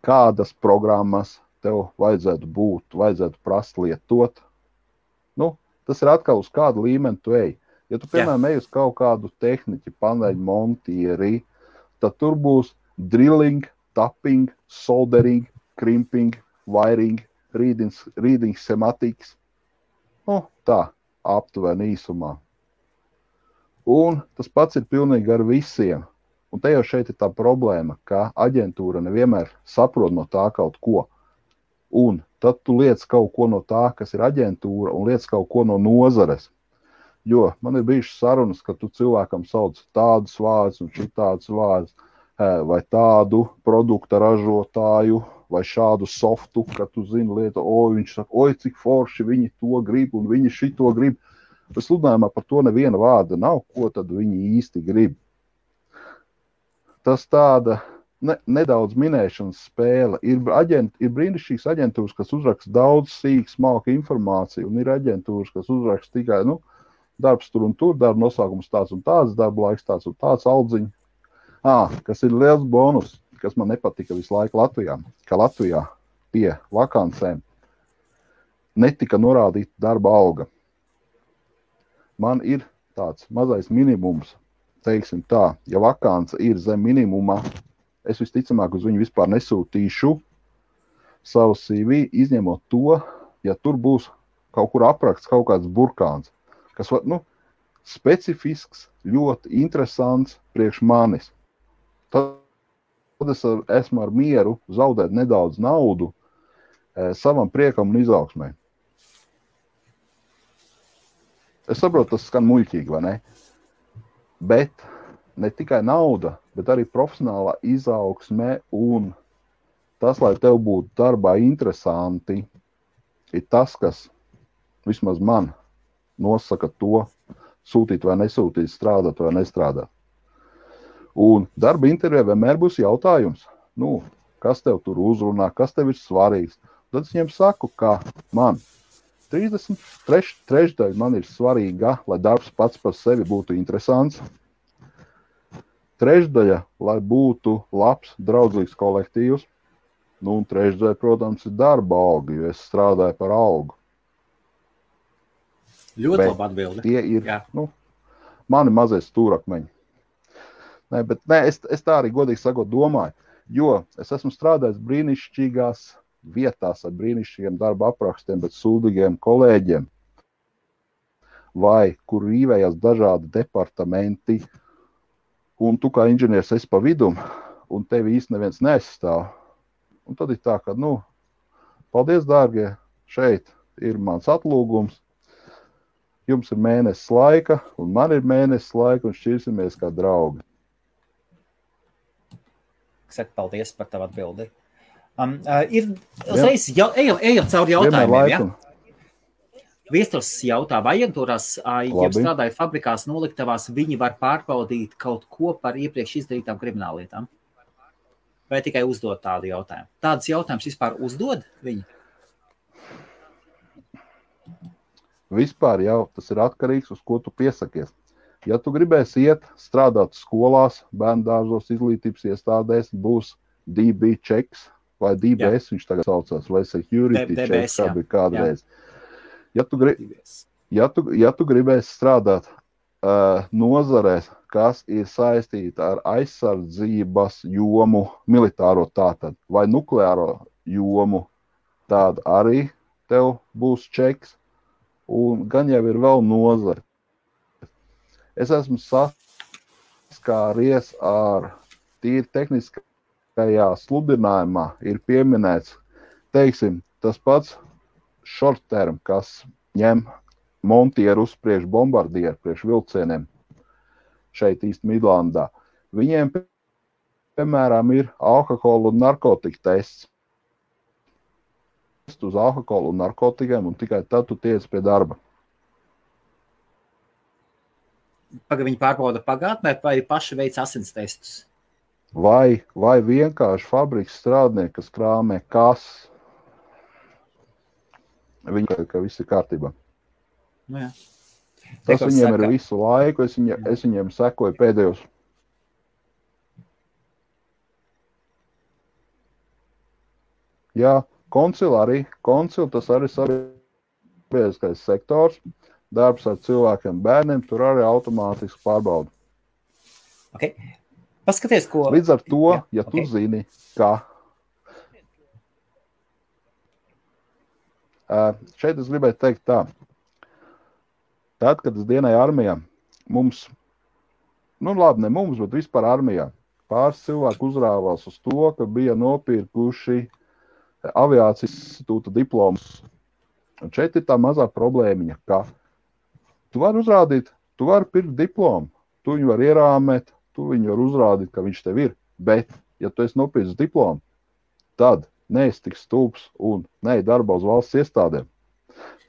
kādas programmas tev vajadzētu prast lietot. Tas ir atkal uz kādu līmeni tu ej. Ja tu, piemēram, ej uz kaut kādu tehniķi, paneļu montieri, tad tur būs drilling, tapping, soldering, crimping, wiring, reading schematics. Tā, aptuveni īsumā. Un tas pats ir pilnīgi ar visiem. Un te jau šeit ir tā problēma, ka aģentūra nevienmēr saprot no tā kaut ko. Un tad tu liec kaut ko no tā, kas ir aģentūra, un liec kaut ko no nozares. Jo man ir bijušas sarunas, ka tu cilvēkam sauc tādus vārdus un šitādus vārdus, vai tādu produkta ražotāju, vai šādu softu, ka tu zini lietu, viņš saka, cik forši viņi to grib un viņi šito grib. Sludinājumā par to neviena vārda nav, ko tad viņi īsti grib. Tas tāda nedaudz minēšanas spēle. Ir brīnišķīgas aģentūras, kas uzraksta daudz sīku, smalku informāciju, un ir aģentūras, kas uzraksta tikai, darbs tur un tur, darba nosaukums tāds un tāds, darba laiks tāds un tāds, aldziņi. Kas ir liels bonus, kas man nepatika visu laiku Latvijā, ka Latvijā pie vakancēm netika norādīta darba alga. Man ir tāds mazais minimums, teiksim tā, ja vakance ir zem minimuma, es visticamāk uz viņu vispār nesūtīšu savu CV, izņemot to, ja tur būs kaut kur apraksts kaut kāds burkāns, kas var, specifisks, ļoti interesants priekš manis. Tad es esmu ar mieru zaudēt nedaudz naudu savam priekam un izaugsmai. Es saprotu, tas skan muļķīgi, vai ne? Bet ne tikai nauda, bet arī profesionālā izaugsme un tas, lai tev būtu darbā interesanti, ir tas, kas vismaz man nosaka to, sūtīt vai nesūtīt, strādāt vai nestrādāt. Un darba intervijā vienmēr būs jautājums, kas tev tur uzrunā, kas tev ir svarīgs. Tad es viņiem saku, ka man 33 man ir svarīga, lai darbs pats par sevi būtu interesants. Trešdaļa, lai būtu labs, draudzīgs kolektīvs. Un trešdaļa, protams, ir darba alga, jo es strādāju par algu. Ļoti labi atbildi. Tie ir mani mazie stūrakmeņi. Es tā arī godīgi sakot domāju, jo es esmu strādājis brīnišķīgās vietās ar brīnišķīgiem darba aprakstiem, bet sūdīgiem kolēģiem, vai kur rīvējās dažādi departamenti, un tu kā inženieris esi pa vidum, un tevi īsti neviens neaizstāv. Un tad ir tā, ka, paldies, dārgie, šeit ir mans atlūgums, jums ir mēnesis laika, un man ir mēnesis laika, un šķirsimies kā draugi. Saka, paldies par tavu atbildi. Ejam cauri jautājumiem, ja? Viesturs jautā, vai aģentūrās, ja strādāja fabrikās noliktavās, viņi var pārbaudīt kaut ko par iepriekš izdarītām krimināllietām? Vai tikai uzdot tādu jautājumu? Tādas jautājumus vispār uzdod viņi? Vispār jau tas ir atkarīgs, uz ko tu piesakies. Ja tu gribēsi iet strādāt skolās, bērndārzos, izglītības iestādēs, būs DB checks vai DBS, viņš tagad saucās, vai security checks, kā bija kādreiz. Ja tu gribēsi strādāt nozarēs, kas ir saistīta ar aizsardzības jomu, militāro tātad, vai nukleāro jomu, tāda arī tev būs čeks, un gan jau ir vēl nozare. Es esmu saskāries ar tīri tehniskajā sludinājumā, ir pieminēts, teiksim, tas pats short term, kas ņem montieru uz priekš bombardieru, priekš vilcieniem šeit īsti Midlandā. Viņiem, piemēram, ir alkohola un narkotika tests. Uz alkoholu un narkotikiem, un tikai tad tu tiec pie darba. Viņi pārbauda pagātnē, vai paši veic asins testus? Vai vienkārši fabrikas strādnieki, kas krāmē kases, viņi, ka viss ir kārtībā. Jā. Tas viņiem ir visu laiku, es viņiem sekoju pēdējos. Jā, koncil, tas arī sabiedriskais sektors, darbs ar cilvēkiem, bērniem, tur arī automātiski pārbauda. Okay. Paskaties, ko... Līdz ar to, ja tu zini, ka... Šeit es gribētu teikt tā. Tad, kad es dienēju armijā, mums, ne mums, bet vispār armijā, pāris cilvēku uzrāvās uz to, ka bija nopirkuši aviācijas institūta diplomus. Un šeit ir tā mazā problēmiņa, ka tu vari uzrādīt, tu vari pirkt diplomu, tu viņu var ierāmēt, tu viņu var uzrādīt, ka viņš tev ir, bet, ja tu esi nopircis diplomu, tad neesi tik stulbs un neej darbā uz valsts iestādēm.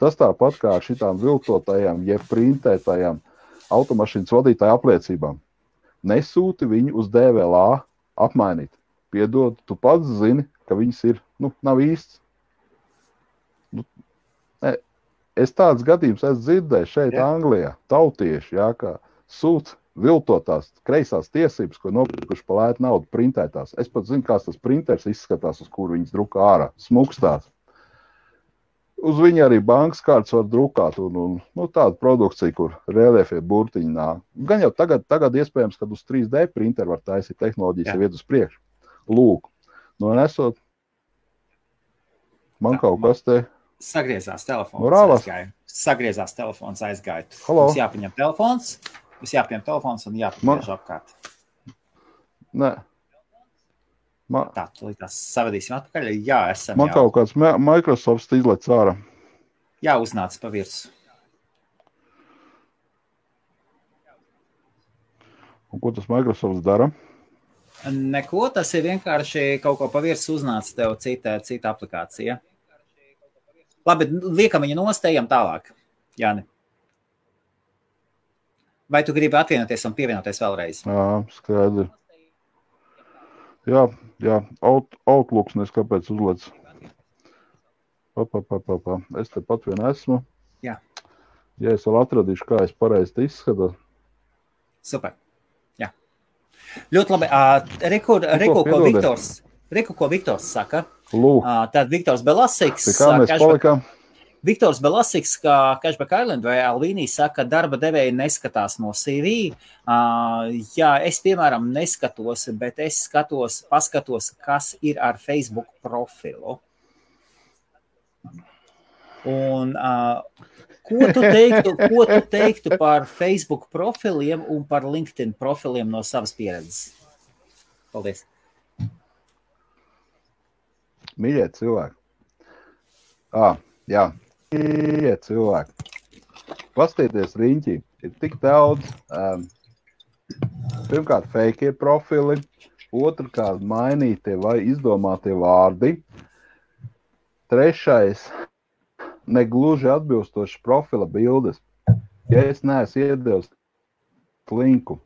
Tas tāpat kā ar šitām viltotajām, jeb printētajām automašīnas vadītāju apliecībām. Nesūti viņu uz DVLA apmainīt. Piedod, tu pats zini, ka viņas ir, nav īsts. Es tāds gadījums esmu dzirdējis šeit Anglijā, tautieši, kā sūt viltotās kreisās tiesības, ko nopirkuši pa lētu naudu printētās. Es pat zinu, kāds tas printers izskatās, uz kuru viņas drukā ārā, smukstās. Uz viņa arī bankas kārtas var drukāt un tāda produkcija, kur reliefie burtiņi nāk. Gan jau tagad iespējams, kad uz 3D printeru var taisīt tehnoloģijas iet uz priekšu. Lūk, nesot, man kaut kas te... Sagriezās telefons aizgāja. Sagriezās telefons aizgāja. Halo? Mums jāpaņem telefons un jāpaņem apkārt. Nē. Tā, tās savadīsim atpakaļ. Jā, esam man kaut kāds Microsoft izlec ārā. Jā, uznāca pa virsu. Un ko tas Microsoft dara? Neko, tas ir vienkārši kaut ko pavirs uznāca tev cita aplikācija. Labi, liekam viņu nostējam tālāk, Jāni. Vai tu gribi atvienoties un pievienoties vēlreiz? Jā, skaidri. Jā, Outlooks nes kāpēc uzlec. Es te pat vien esmu. Jā. Ja es vēl atradīšu, kā es pareizi izskatu. Super. Jā. Ļoti labi. Reku, ko Viktors saka. Tad Viktors Belasiks. Pie kā mēs palikām? Viktors Belasiks, kā Cashback Island vai Alvīnī saka, darba devēji neskatās no CV. Jā, es, piemēram, neskatos, bet es paskatos, kas ir ar Facebook profilu. Un ko tu teiktu par Facebook profiliem un par LinkedIn profiliem no savas pieredzes? Paldies. Mīļie cilvēki. Jā. Mīļie cilvēki. Pastīties riņķī. Ir tik daudz. Pirmkārt, fake profili. Otrkārt, mainītie vai izdomātie vārdi. Trešais, negluži atbilstoši profila bildes. Ja es neesmu iedevis linku.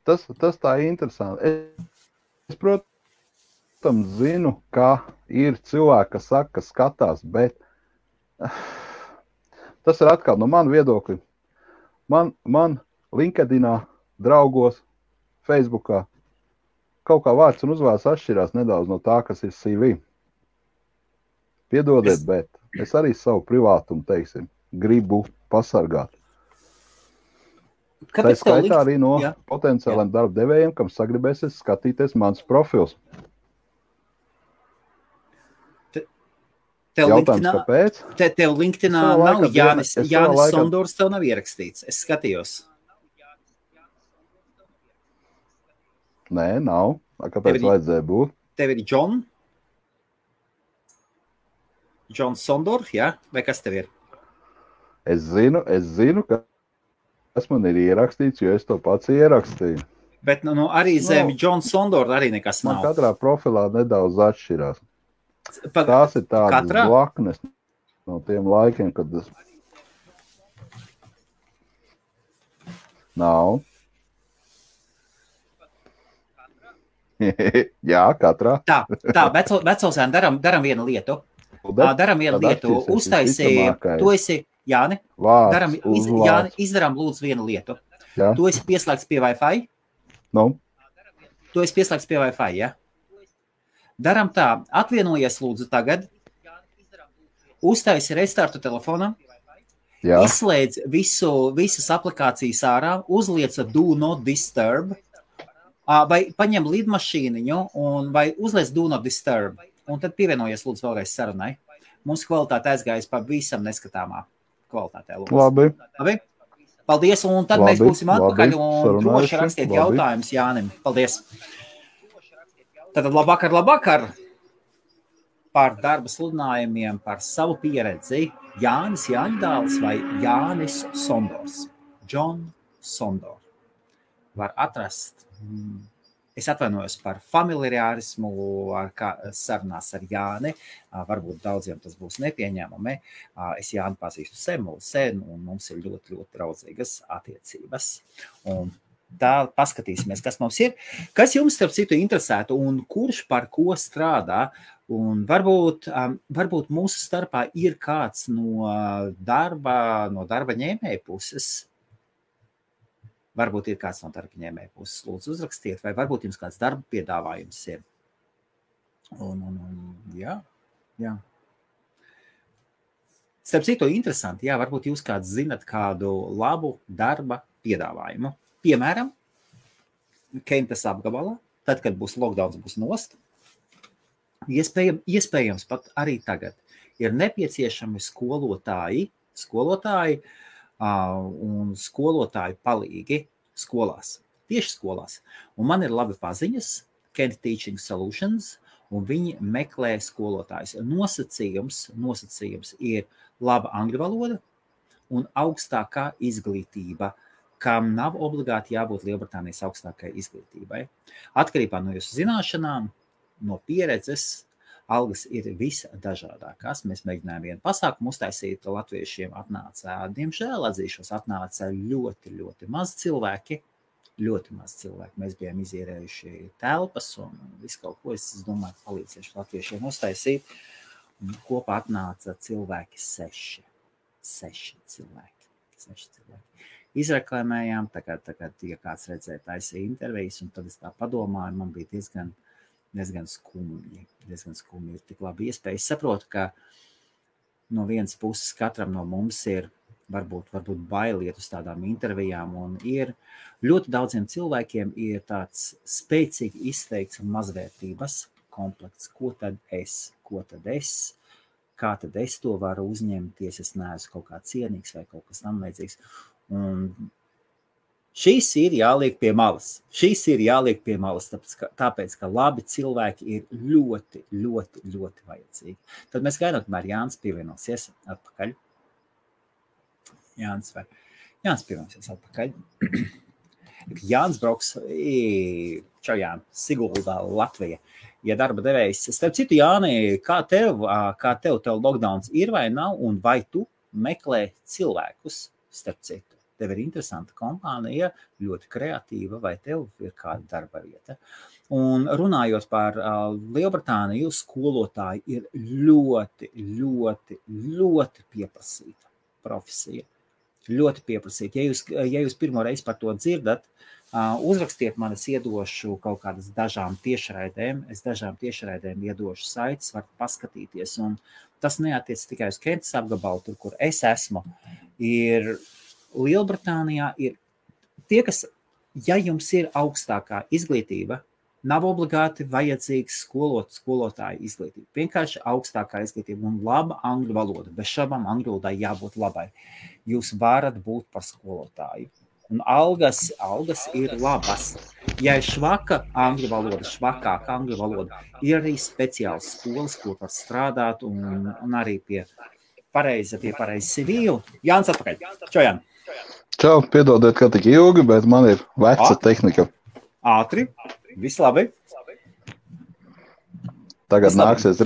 Tas tā ir interesanti. Es, protams, zinu, ka ir cilvēki, kas saka, ka skatās, bet tas ir atkal no mana viedokļa. Man LinkedInā, draugos, Facebookā kaut kā vārds un uzvārds atšķirās nedaudz no tā, kas ir CV. Piedodiet, bet es arī savu privātumu, teiksim, gribu pasargāt. Tā skaitā arī no potenciāliem darba devējiem, kam sagribēsies skatīties mans profils. Jautājums, kāpēc? Tev LinkedInā nav Jānis Sondors, tev nav ierakstīts. Es skatījos. Nē, nav. Kāpēc vajadzēja būt? Tev ir John Sondor, jā? Vai kas tev ir? Es zinu, kas man ir ierakstīts, jo es to pats ierakstīju. Bet arī zem John Sondor arī nekas nav. Man katrā profilā nedaudz atšķirās. Tās ir tādas blaknes no tiem laikiem, kad tas nav. Jā, katrā. Tā, vecosēn daram vienu lietu. Uztaisīja, tu esi, Jāni, Jāni, izdarām lūdzu vienu lietu. Jā. Tu esi pieslēgts pie Wi-Fi? Tu esi pieslēgts pie Wi-Fi, ja? Daram tā, atvienojies lūdzu tagad, uztaisi restartu telefonam, izslēdz visas aplikācijas ārā, uzliec Do Not Disturb, vai paņem lidmašīniņu vai uzliec Do Not Disturb, un tad pievienojies lūdzu vēlreiz sarunai. Mums kvalitāte aizgājas pa visam neskatāmā kvalitātē. Labi. Paldies, un tad mēs būsim atpakaļ un droši rakstiet jautājumus Jānim. Paldies. Tātad labvakar par darba sludinājumiem, par savu pieredzi. Jānis Jāņdāls vai Jānis Sondors. John Sondor. Var atrast. Es atvainojos par familiārismu sarunās ar Jāni. Varbūt daudziem tas būs nepieņēmami. Es Jāni pazīstu sen, un mums ir ļoti, ļoti draudzīgas attiecības. Un tā paskatīsimies, kas mums ir. Kas jums, starp citu, interesētu un kurš par ko strādā? Un varbūt mūsu starpā ir kāds no darba ņēmēja puses. Varbūt ir kāds no darba ņēmēja puses. Lūdzu, uzrakstiet, vai varbūt jums kāds darba piedāvājums ir. Jā. Starp citu, interesanti, jā, varbūt jūs kāds zinat kādu labu darba piedāvājumu. Piemēram, Kentas apgabalā, tad, kad būs lockdowns, būs nost, iespējams pat arī tagad ir nepieciešami skolotāji un skolotāju palīgi skolās, tieši skolās. Un man ir labi paziņas, Kent Teaching Solutions, un viņi meklē skolotājus. Nosacījums ir laba angļu valoda un augstākā izglītība kam nav obligāti jābūt Lielbritānijas augstākai izglītībai. Atkarībā no jūsu zināšanām, no pieredzes, algas ir visdažādākās. Mēs mēģinājām vienu pasākumu uztaisīt, latviešiem atnāca, diemžēl atzīšos, atnāca ļoti, ļoti maz cilvēki. Ļoti maz cilvēki. Mēs bijām izierējuši telpas un visu kaut ko, es domāju, palīdzēšu latviešiem uztaisīt. Un kopā atnāca cilvēki 6 cilvēki. 6 cilvēki. Izreklamējām, tagad, ja kāds redzēja, taisīja intervijas, un tad es tā padomāju, man bija diezgan skumji. Ir tik labi iespēja. Es saprotu, ka no vienas puses katram no mums ir varbūt bailiet uz tādām intervijām, un ir ļoti daudziem cilvēkiem ir tāds spēcīgi izteikts mazvērtības komplekts. Ko tad es? Kā tad es to varu uzņemties? Es neesmu kaut kā cienīgs vai kaut kas tam līdzīgs. Un šīs ir jāliek pie malas. Tāpēc, ka labi cilvēki ir ļoti, ļoti, ļoti vajadzīgi. Tad mēs gaidām, kamēr Jānis pievienosies atpakaļ. Jānis pievienosies atpakaļ. Jānis brauks, Siguldā, Latvija. Ja darba devējs, starp citu, Jāni, kā tev lockdowns ir vai nav, un vai tu meklē cilvēkus, starp citu? Tev ir interesanta kompānija, ļoti kreatīva, vai tev ir kāda darba vieta? Un runājot par Lielbritāniju, skolotāji ir ļoti, ļoti, ļoti pieprasīta profesija. Ļoti pieprasīt. Ja jūs pirmo reizi par to dzirdat, uzrakstiet man, es iedošu kaut kādas dažām tiešraidēm. Es dažām tiešraidēm iedošu saites, varat paskatīties. Un tas neatiec tikai uz Kentas apgabalu, tur, kur es esmu. Ir Lielbritānijā ir tie, kas, ja jums ir augstākā izglītība, nav obligāti vajadzīgs skolotāju izglītība. Vienkārši augstākā izglītība un laba angļu valoda. Bez šabām angļu valodai jābūt labai. Jūs varat būt par skolotāju. Un algas ir labas. Ja ir švakāka angļu valoda, ir arī speciāls skolas, kur var strādāt un arī pie pareiza CV. Jānis atpakaļ. Čau, Jāni. Čau, piedodiet, ka tik ilgi, bet man ir veca tehnika. Ātri. Viss labi. Tagad nāksies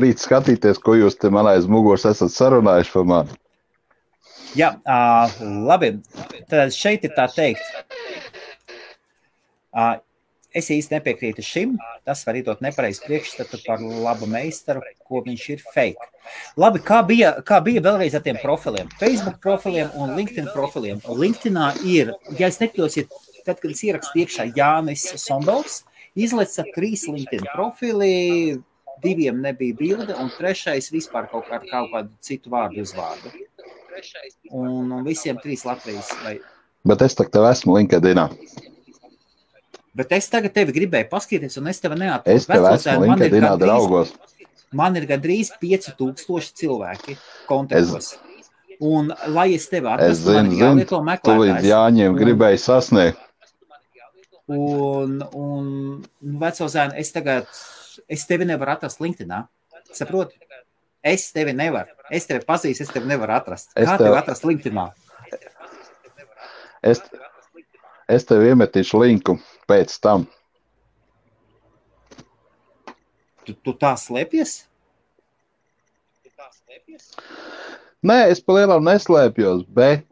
rīt skatīties, ko jūs te man aiz muguras esat sarunājuši par mani. Jā, labi. Tad šeit ir tā teikt. Es īsti nepiekrītu šim. Tas var iedot nepareizi priekšstatu par labu meistaru, ko viņš ir fake. Labi, kā bija vēlreiz ar tiem profiliem? Facebook profiliem un LinkedIn profiliem. LinkedInā ir, ja es nekļūsiet, tad, kad es ierakstu iekšā Jānis Sombels, izleca 3 LinkedIn profili, 2 nebija bilde, un 3 vispār kaut kādu citu vārdu uzvārdu. Un visiem 3 Latvijas. Bet es tev esmu LinkedInā. Bet es tagad tevi gribēju paskatīties, un es tevi neatrodu. Es tev esmu LinkedInā draugos. Man ir gandrīz 5000 cilvēki kontaktos. Un, lai es tevi atrastu, man ir jālieto meklētājs. Tu līdz Jāņiem gribēji sasniegt. Un veco zēnu, es tevi nevaru atrast LinkedInā. Saproti? Es tevi nevaru. Es tevi pazīstu, es tevi nevaru atrast. Kā tevi atrast LinkedInā? Es tev iemetīšu linku pēc tam. Tu tā slēpies? Nē, es pa lielam neslēpjos, bet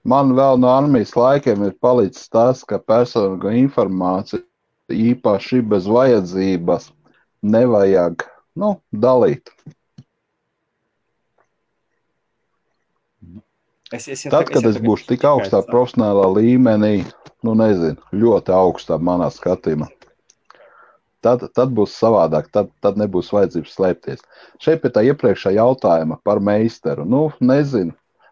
man vēl no armijas laikiem ir palicis tas, ka personīgo informāciju īpaši bez vajadzības nevajag, dalīt. Tad, kad es būšu tik augstā profesionālā līmenī, ļoti augstā manā skatījumā, tad būs savādāk, tad nebūs vajadzības slēpties. Šeit pie tā iepriekšā jautājuma par meistaru. Nezinu.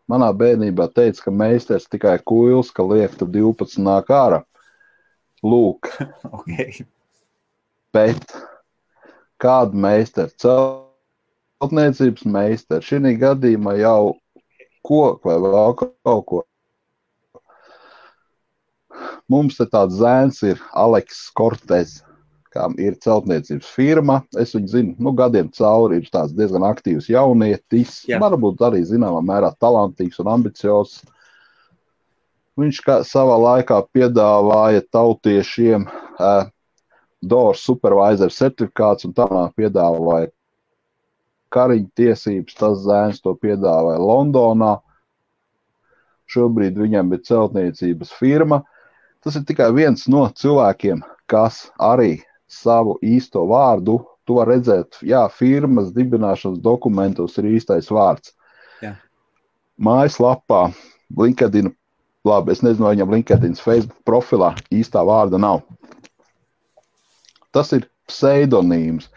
Manā bērnībā teica, ka meistars tikai kuils, ka liek tur 12 nāk ārā. Lūk. Okay. Bet kādu meistaru? Celtniecības meistaru. Šī gadījumā jau koku vai vēl kaut ko. Mums te tāds zēns ir Aleks Kortez, kam ir celtniecības firma. Es viņu zinu, gadiem cauri ir tāds diezgan aktīvs jaunietis. Jā. Varbūt arī zināmā mērā talantīgs un ambiciozs. viņš savā laikā piedāvāja tautiešiem DOR supervisor certifikāts un tā piedāvāja kariņu tiesības, tas zēns to piedāvāja Londonā. Šobrīd viņam ir celtniecības firma. Tas ir tikai viens no cilvēkiem, kas arī savu īsto vārdu, tu var redzēt, jā, firmas dibināšanas dokumentos ir īstais vārds. Jā. Mājaslapā, LinkedIn, labi, es nezinu, vai viņam LinkedIn, Facebook profilā īstā vārda nav. Tas ir pseidonīms.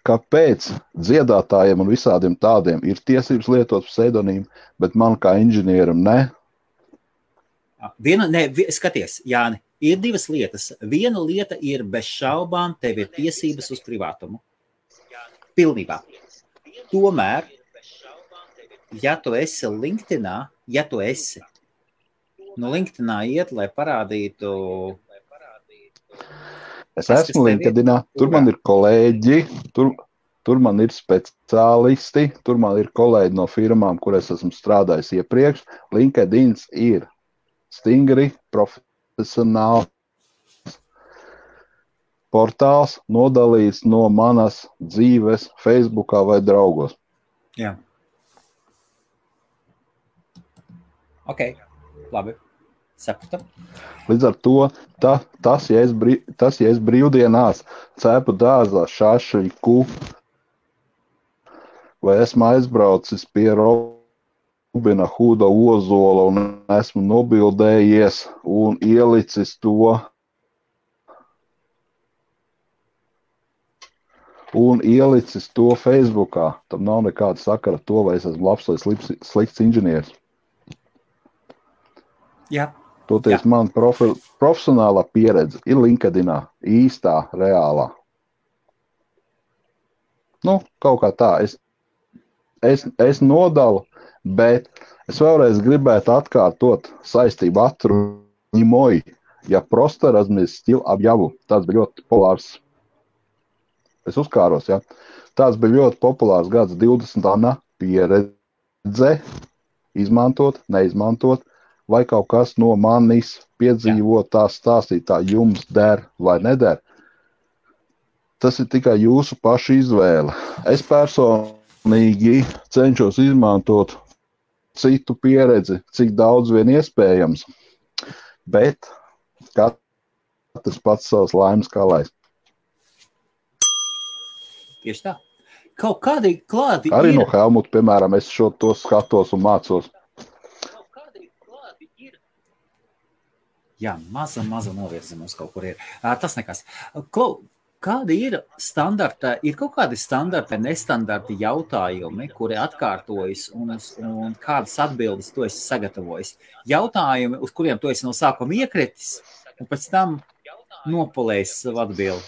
Kāpēc dziedātājiem un visādiem tādiem ir tiesības lietot pseidonīmu, bet man kā inženieram ne? Skaties, Jāni, ir divas lietas. Viena lieta ir bez šaubām, tev ir tiesības uz privātumu. Pilnībā. Tomēr, ja tu esi LinkedInā, no LinkedInā iet, lai parādītu... Es esmu LinkedInā, tur man ir kolēģi, tur man ir speciālisti, tur man ir kolēģi no firmām, kur es esmu strādājis iepriekš. LinkedIns ir stingri, profesionāls portāls, nodalīts no manas dzīves Facebookā vai draugos. Jā. Ok, labi. Sapratu. Līdz ar to, tas, ja es brīvdienās cepu dārzā šašļiku, vai esmu aizbraucis pie Robina Huda ozola un esmu nobildējies un ielicis to Facebookā, tam nav nekāda sakara to, vai es esmu labs vai slikts inženieris. Jā. Toties man profesionālā pieredze ir LinkedInā, īstā, reālā. Kaut kā tā. Es nodalu, bet es vēlreiz gribētu atkārtot saistību atruņimoju, ja просто разместил объяву. Tas bija ļoti populārs. Es uzkāros, ja. Tas bija ļoti populārs gads 20. Pieredze, izmantot, neizmantot. Vai kaut kas no manis piedzīvotā stāstītā jums der vai neder. Tas ir tikai jūsu paša izvēle. Es personīgi cenšos izmantot citu pieredzi, cik daudz vien iespējams, bet katrs pats savs laimes kalais. Tieši tā. Kaut kādi klāti arī ir... no Helmuta, piemēram, es to skatos un mācos. Jā, maza novirzi mums kaut kur ir. Tas nekas. Kādi ir standarta, ir kaut kādi standarta, nestandarti jautājumi, kuri atkārtojas un kādas atbildes tu esi sagatavojis? Jautājumi, uz kuriem tu esi no sākuma iekritis un pēc tam nopolējis savu atbildi?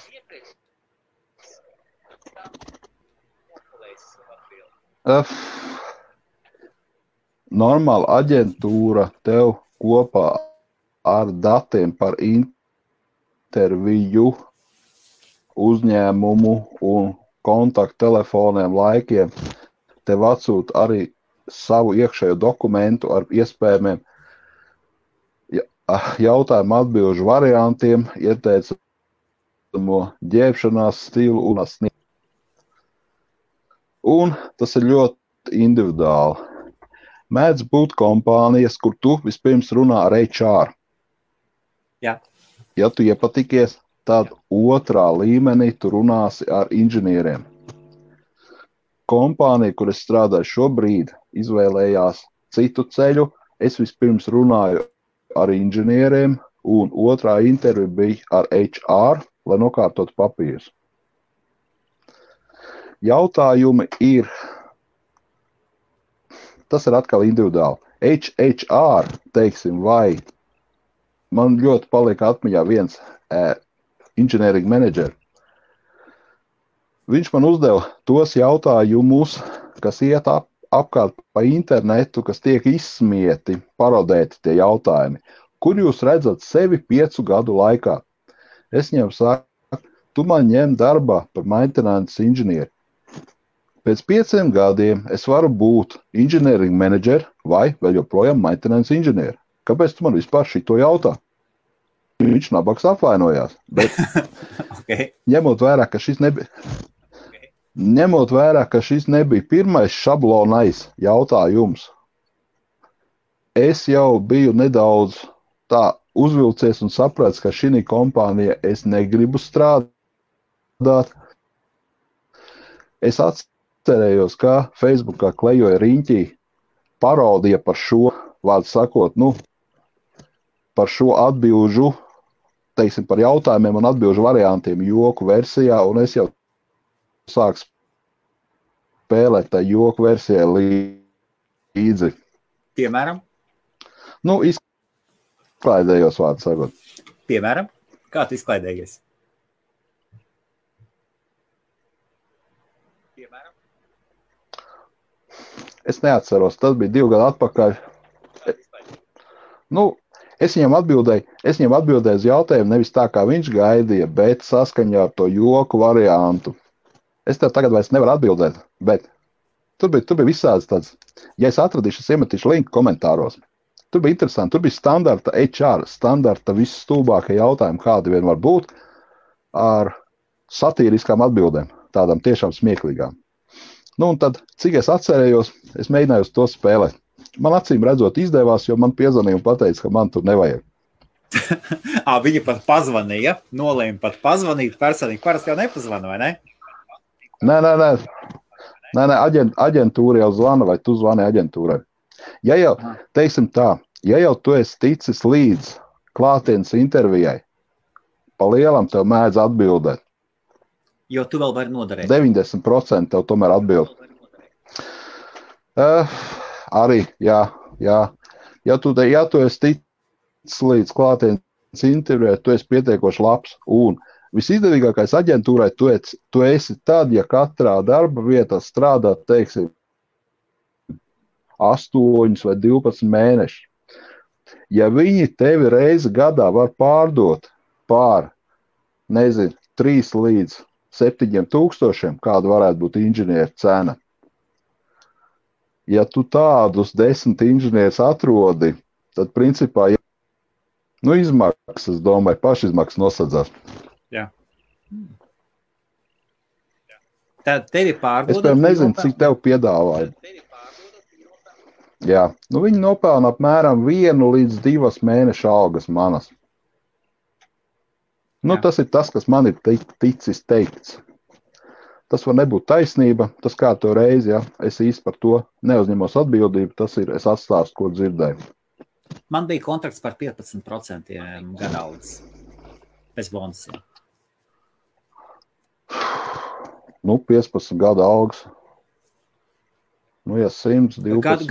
Normāla aģentūra tev kopā ar datiem par interviju, uzņēmumu un kontakttelefoniem, laikiem, tev atsūta arī savu iekšējo dokumentu ar iespējamiem jautājumu atbilžu variantiem, ieteicamo ģērbšanās stilu un sniegu. Un tas ir ļoti individuāli. Mēdz būt kompānijas, kur tu vispirms runā ar HR. Jā. Ja tu iepatikies, tad otrā līmenī tu runāsi ar inženieriem. Kompānija, kur es strādāju šobrīd, izvēlējās citu ceļu. Es vispirms runāju ar inženieriem, un otrā intervija bija ar HR, lai nokārtotu papīrus. Jautājumi ir, tas ir atkal individuāli. HR, teiksim, vai man ļoti palika atmiņā viens engineering manager. Viņš man uzdeva tos jautājumus, kas iet apkārt pa internetu, kas tiek izsmieti, parodēti tie jautājumi. Kur jūs redzat sevi 5 gadu laikā? Es viņam saku, tu man ņem darbā par maintenance inženieri. Pēc 5 gadiem es varu būt engineering manager vai vēl joprojām maintenance inženieri. kāpēc tu man vispār šito jautā? Viņš nabaks apvainojās, bet Okay. ņemot vērā, ka šis nebija pirmais šablonais jautājums, es jau biju nedaudz tā uzvilcies un saprats, ka šī kompānija es negribu strādāt. Es atcerējos, ka Facebookā klejoja riņķī parodija par šo, vārdu sakot, par šo atbilžu, teiksim, par jautājumiem un atbilžu variantiem joku versijā, un es jau sāku spēlēt tā joku versijai līdzi. Piemēram? Izklaidējos, vārdu sakot. Piemēram? Kā tu izklaidējies? Es neatceros, tas bija 2 gadu atpakaļ. Es viņam atbildēju uz jautājumu nevis tā, kā viņš gaidīja, bet saskaņā ar to joku variantu. Es tev tagad vairs nevaru atbildēt, bet tur bija visāds tāds, ja es atradīšu, es iemetīšu linku komentāros. Tur bija interesanti, tur bija standarta HR, standarta visstulbākie jautājumi, kādi vien var būt, ar satīriskām atbildēm, tādām tiešām smieklīgām. Un tad, cik es atcerējos, es mēģināju uz to spēlēt. Man acīm redzot izdevās, jo man piezvanīja un pateica, ka man tur nevajag. Viņa pat pazvanīja, nolēma pat pazvanīt personīgi. Parasti jau nepazvana, vai ne? Nē, aģentūra jau zvana, vai tu zvani aģentūrai. Ja jau, teiksim tā, ja jau tu esi ticis līdz klātienes intervijai, pa lielam tev mēdz atbildēt. Jo tu vēl vari noderēt. 90% tev tomēr atbild. Arī, jā. Ja tu esi ticis līdz klātienes intervijai, tu esi pietiekoši labs. Un visizdevīgākais aģentūrai tu esi tad, ja katrā darba vietā strādā, teiksim, 8 vai 12 mēneši. Ja viņi tevi reizi gadā var pārdot pār, 3 līdz 7 tūkstošiem, kāda varētu būt inženieru cena. Ja tu tādus 10 inženierus atrodi, tad principā, izmaksas, es domāju, pašizmaksas nosadzās. Jā. Tad tevi pārdod. Es, nezinu, cik tev piedāvāja. Jā, viņi nopelna apmēram 1 līdz 2 mēnešu algas manas. Tas ir tas, kas man ir ticis teikts. Tas var nebūt taisnība, tas kā to reizi, ja es īsti par to neuzņemos atbildību, tas ir, es atstāstu, ko dzirdēju. Man bija kontrakts par 15% gada algas. Bez bonusiem. 15 gada algas. Ja 112,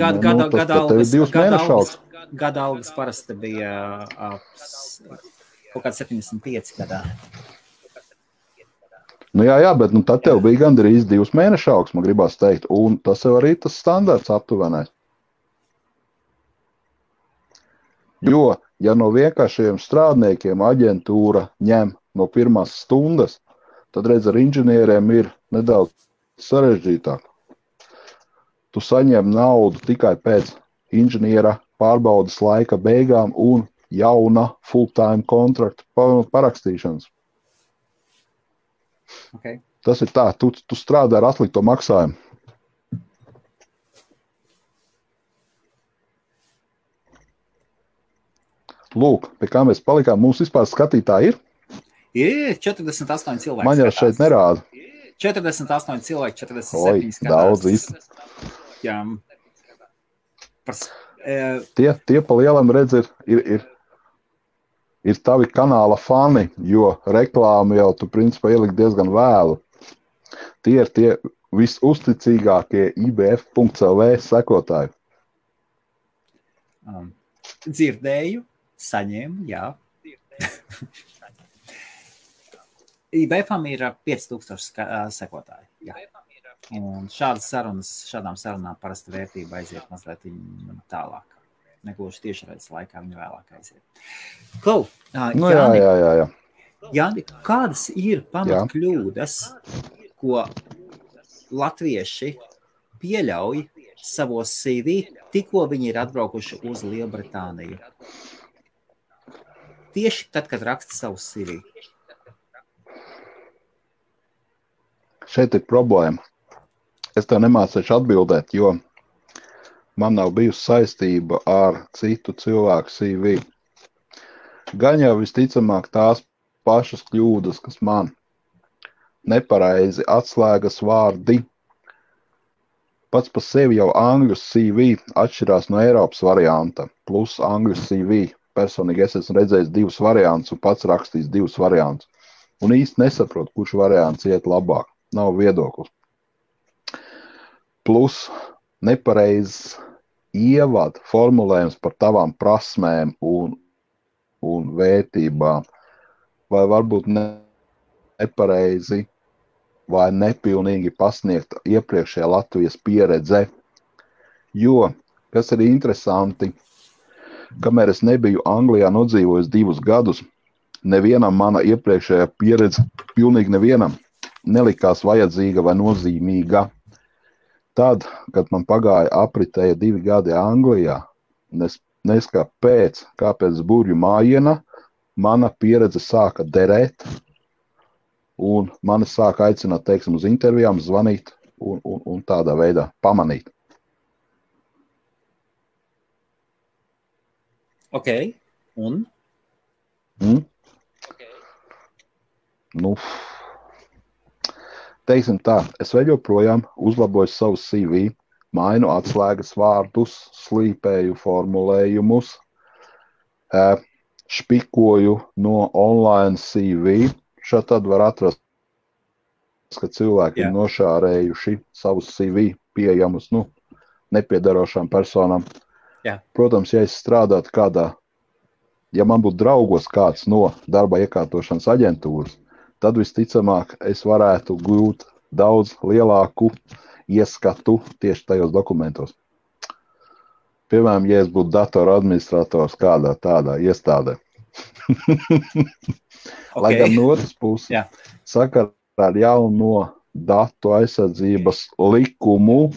tad tev ir 2 mēnešu algas. Gada algas parasti bija kaut kāds 75 gadā. Jā, bet tad tev bija gandrīz 2 mēnešu algas, man gribās teikt, un tas jau arī tas standarts aptuvenais. Jo, ja no vienkāršiem strādniekiem aģentūra ņem no pirmās stundas, tad redz, ar inženieriem ir nedaudz sarežģītāk. Tu saņem naudu tikai pēc inženiera pārbaudas laika beigām un jauna full-time kontrakta parakstīšanas. Okay. Tas ir tā, tu strādā ar atlikto maksājumu. Lūk, pie kā mēs palikām, mums vispār skatītāji ir? Ir 48 cilvēki. Man jau šeit nerāda. 48 cilvēki, 47 skatās. Daudz īsti. Jā. Tie pa lielam redz ir tavi kanāla fani, jo reklāmu jau tu principā ielikt diezgan vēlu. Tie ir tie visuzticīgākie IBF.lv sekotāji. Dzirdēju, saņēmu, jā. IBF-am ir 5000 sekotāji. Jā. Un šādām sarunām parasti vērtība aiziet mazliet tālāk. Negluži tiešraides laikā viņa vēlāk aiziet. Klau, jā. Jāni, kādas ir pamatkļūdas, ko latvieši pieļauj savos CV, tikko viņi ir atbraukuši uz Lielbritāniju? Tieši tad, kad raksta savu CV. Šeit ir problēma. Es tev nemācīšu atbildēt, jo man nav bijusi saistība ar citu cilvēku CV. Gan jau visticamāk tās pašas kļūdas, kas man nepareizi atslēgas vārdi. Pats par sevi jau angļu CV atšķirās no Eiropas varianta, plus angļu CV. Personīgi es esmu redzējis 2 variantus un pats rakstījis 2 variantus. Un īsti nesaprotu, kurš variants iet labāk. Nav viedoklis. Plus nepareizs ievad formulējums par tavām prasmēm un vērtībām. Vai varbūt nepareizi vai nepilnīgi pasniegt iepriekšējā Latvijas pieredze. Jo, kas ir interesanti, kamēr es nebiju Anglijā nodzīvojis 2 gadus, nevienam mana iepriekšējā pieredze, pilnīgi nevienam, nelikās vajadzīga vai nozīmīga. Tad, kad man pagāja apritēja 2 gadi Anglijā, kāpēc burju mājiena, mana pieredze sāka derēt, un mani sāka aicināt, teiksim, uz intervijām, zvanīt un tādā veidā pamanīt. Ok, un? Nu, teiksim tā, es vēl joprojām uzlaboju savu CV, mainu atslēgas vārdus, slīpēju formulējumus, špikoju no online CV. Šādi tad var atrast, ka cilvēki ir nošārējuši savus CV pieejamus, nepiedarošām personām. Protams, ja es strādātu ja man būtu draugos kāds no darba iekārtošanas aģentūras, tad visticamāk es varētu gūt daudz lielāku ieskatu tieši tajos dokumentos. Piemēram, ja es būtu datora administrators kādā tādā iestādē. Lai gan no otras puses, sakarā ar jauno datu aizsardzības likumu,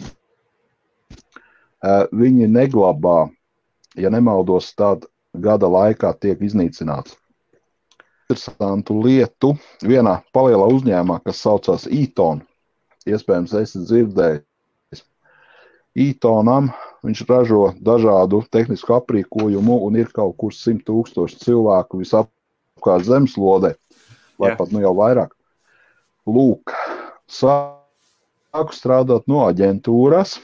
viņi neglabā, ja nemaldos, tad gada laikā tiek iznīcināts. Interesantu lietu vienā palielā uzņēmumā, kas saucās Eaton, iespējams esi dzirdējis. Eatonam viņš ražo dažādu tehnisku aprīkojumu un ir kaut kur 100 000 cilvēku visapkārt zemeslodē, vai pat jau vairāk. Lūk, sāku strādāt no aģentūras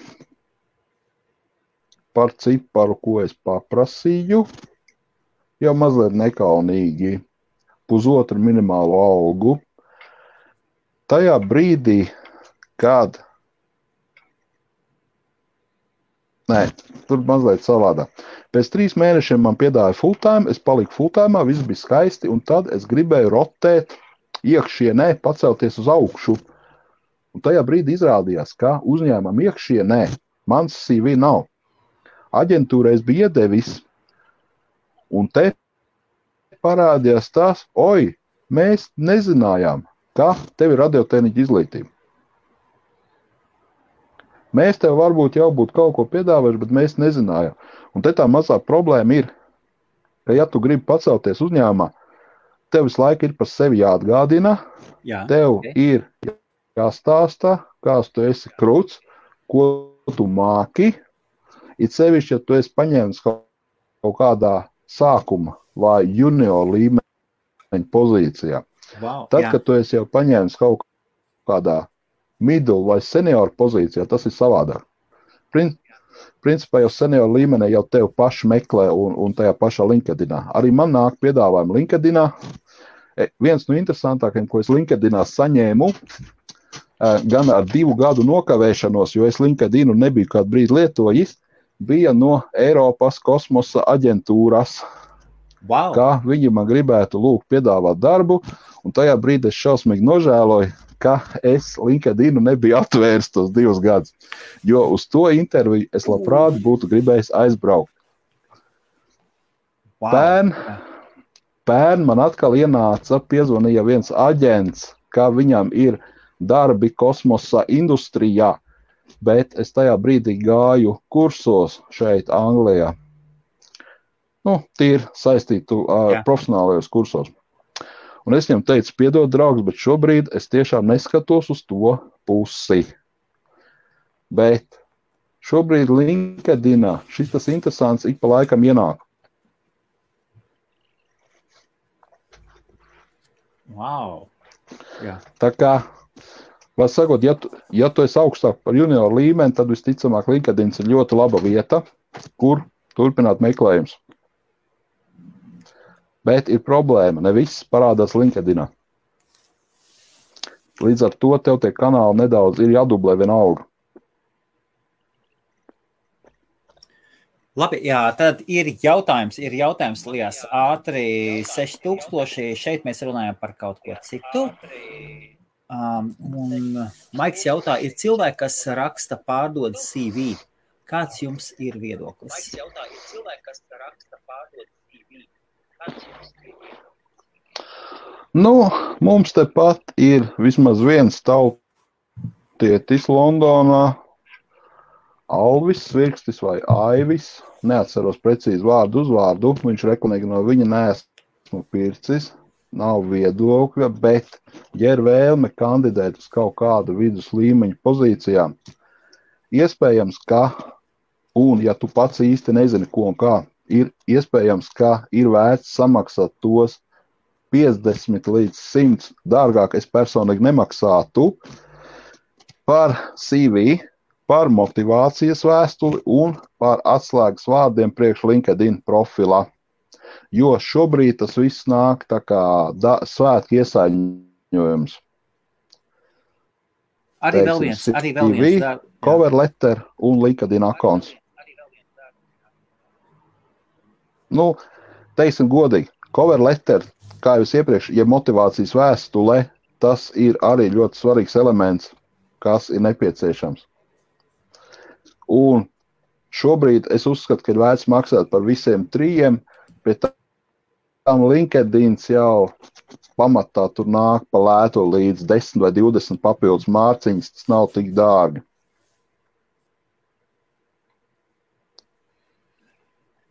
par ciparu, ko es paprasīju, jau mazliet nekaunīgi, 1,5 minimālo algu. Tajā brīdī, kad tur mazliet savādā. Pēc 3 mēnešiem man piedāja full time, es paliku full time, viss bija skaisti, un tad es gribēju rotēt iekšienē, pacelties uz augšu. Un tajā brīdī izrādījās, ka uzņēmumam iekšienē mans CV nav. Aģentūrai es biju iedevis, un te parādījās tās, mēs nezinājām, ka tev ir radiotehniķa izglītība. Mēs tev varbūt jau būtu kaut ko piedāvājuši, bet mēs nezinājām. Un te tā mazā problēma ir, ka ja tu gribi pacelties uzņēmumā, tev visu laiku ir par sevi jāatgādina, tev ir jāstāsta, kāds tu esi krūts, ko tu māki, it sevišķi, ja tu esi paņēmis kaut kādā sākuma vai junior līmeņa pozīcijā. Tad, kad tu esi jau paņēmis kaut kādā middle vai senior pozīcijā, tas ir savādāk. Principā jau senior līmenī jau tev paši meklē un tajā pašā LinkedInā. Arī man nāk piedāvājumi LinkedInā. Viens no interesantākajiem, ko es LinkedInā saņēmu, gan ar 2 gadu nokavēšanos, jo es LinkedInu nebiju kādu brīdi lietojis, bija no Eiropas kosmosa aģentūras, kā viņi man gribētu piedāvāt darbu, un tajā brīdī es šausmīgi nožēloju, ka es LinkedInu nebiju atvērs tos 2 gadus, jo uz to interviju es labprāt būtu gribējis aizbraukt. Pērn man atkal piezvanīja viens aģents, ka viņam ir darbi kosmosa industrijā, bet es tajā brīdī gāju kursos šeit Anglijā. Tīri saistītu profesionālajos kursos. Un es viņam teicu, piedod, draugs, bet šobrīd es tiešām neskatos uz to pusi. Bet šobrīd LinkedInā šis tas interesants ik pa laikam ienāk. Wow. Jā. Tā kā, var sakot, ja tu esi augstāk par junioru līmeni, tad visticamāk LinkedIns ir ļoti laba vieta, kur turpināt meklējums. Bet ir problēma, ne viss parādās LinkedInā. Līdz ar to tev tie kanāli nedaudz ir jādublē vienalga. Labi, jā, tad ir jautājums, Lijas, ātri 6000, šeit mēs runājam par kaut ko citu. Un Maiks jautā, ir cilvēki, kas raksta pārdod CV. Kāds jums ir viedoklis? Mums tepat ir vismaz viens tautietis Londonā, Alvis Svirkstis vai Aivis, neatceros precīzi vārdu uzvārdu, viņš rekomendē no viņa neesmu pircis, nav viedokļa, bet, ja ir vēlme kandidēt uz kaut kādu vidus līmeņa pozīcijām, iespējams, ka, un ja tu pats īsti nezini, ko un kā, ir iespējams, ka ir vērts samaksāt tos 50 līdz 100, dārgāk es personīgi nemaksātu par CV, par motivācijas vēstuli un par atslēgas vārdiem priekš LinkedIn profila. Jo šobrīd tas viss nāk tā kā svētki iesaiņojums. Arī vēl viens. Cover letter un LinkedIn akons. Teiksim godīgi, cover letter, kā jūs iepriekš, ja motivācijas vēstule, tas ir arī ļoti svarīgs elements, kas ir nepieciešams. Un šobrīd es uzskatu, ka ir vērts maksāt par visiem 3, bet tam LinkedIns jau pamatā tur nāk pa lēto līdz 10 vai 20 papildus mārciņas, tas nav tik dārgi.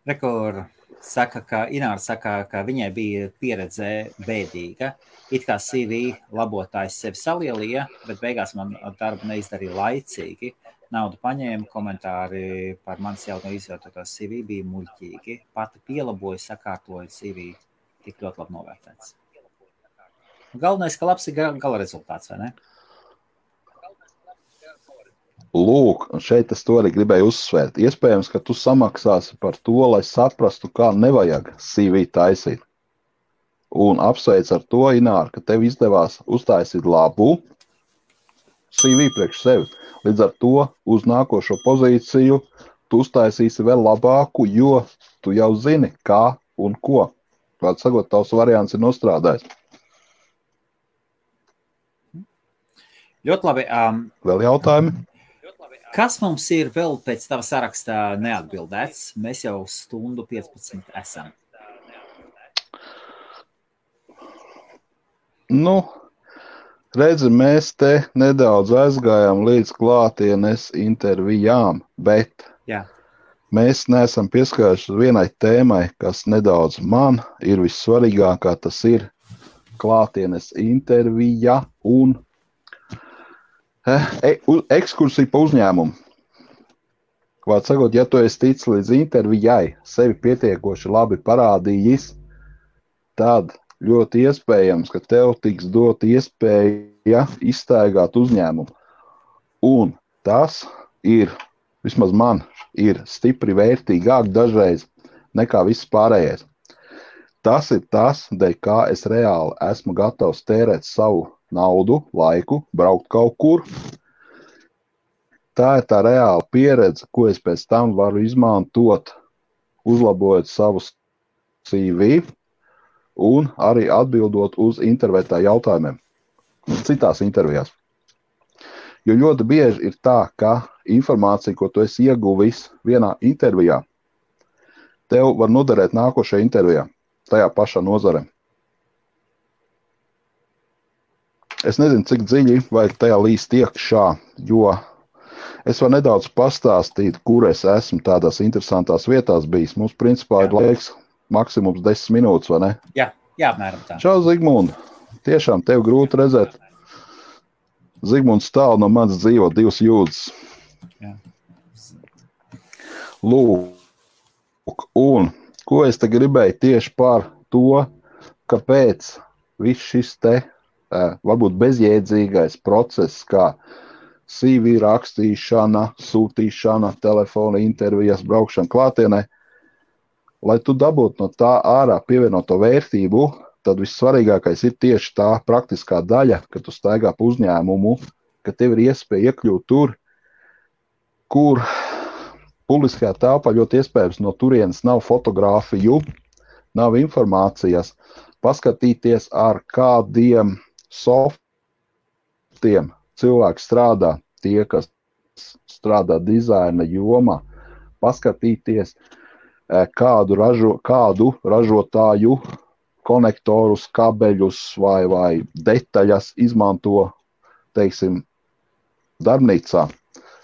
Ināra saka, ka viņai bija pieredze bēdīga. It kā CV labotājs sevi salielīja, bet beigās man darbu neizdarīja laicīgi. Naudu paņēma, komentāri par manis jau no izvērtotās CV bija muļķīgi. Pati pielaboja, sakārtoja CV, tik ļoti labi novērtēts. Galvenais, ka labs ir gala rezultāts, vai ne? Lūk, šeit es to arī gribēju uzsvērt. Iespējams, ka tu samaksāsi par to, lai saprastu, kā nevajag CV taisīt. Un apsveic ar to, Ināra, ka tev izdevās uztaisīt labu CV priekš sevi. Līdz ar to uz nākošo pozīciju tu uztaisīsi vēl labāku, jo tu jau zini, kā un ko. Vārds sakot, tavs variants ir nostrādājis. Ļoti labi. Vēl jautājumi? Kas mums ir vēl pēc tava sarakstā neatbildēts? Mēs jau 1:15 esam. Redzi, mēs te nedaudz aizgājām līdz klātienes intervijām, bet mēs neesam pieskārušies vienai tēmai, kas nedaudz man ir vissvarīgākā, tas ir klātienes intervija un ekskursija pa uzņēmumu. Vārds sakot, ja tu esi ticis līdz intervijai, sevi pietiekoši labi parādījis, tad ļoti iespējams, ka tev tiks dot iespēja izstaigāt uzņēmumu. Un tas ir, vismaz man, ir stipri vērtīgāk dažreiz nekā viss pārējais. Tas ir tas, dēļ kā es reāli esmu gatavs tērēt savu naudu, laiku, braukt kaut kur. Tā ir tā reāla pieredze, ko es pēc tam varu izmantot, uzlabojot savus CV un arī atbildot uz intervētā jautājumiem, citās intervijās. Jo ļoti bieži ir tā, ka informācija, ko tu esi ieguvis vienā intervijā, tev var noderēt nākošajā intervijā, tajā pašā nozarē. Es nezinu, cik dziļi vajag tajā līst iekšā, jo Es varu nedaudz pastāstīt, kur es esmu tādās interesantās vietās bijis. Mums, principā, ir laiks maksimums 10 minūtes, vai ne? Jā, apmēram tā. Čau, Zigmund. Tiešām tev grūti redzēt. Zigmunds tālu no manas dzīvo 2 jūdzes. Jā. Lūk, un ko es te gribēju tieši par to, kāpēc viss šis te varbūt bezjēdzīgais process, kā CV rakstīšana, sūtīšana, telefona intervijas, braukšana klātienē, lai tu dabūtu no tā ārā pievienoto vērtību, tad vissvarīgākais ir tieši tā praktiskā daļa, kad tu staigā pa uzņēmumu, ka tev ir iespēja iekļūt tur, kur publiskajā telpā ļoti iespējams no turienes nav fotogrāfiju, nav informācijas, paskatīties ar kādiem softiem cilvēki strādā, tie, kas strādā dizaina jomā, paskatīties, kādu ražotāju konektorus, kabeļus vai detaļas izmanto, teiksim, darbnīcā.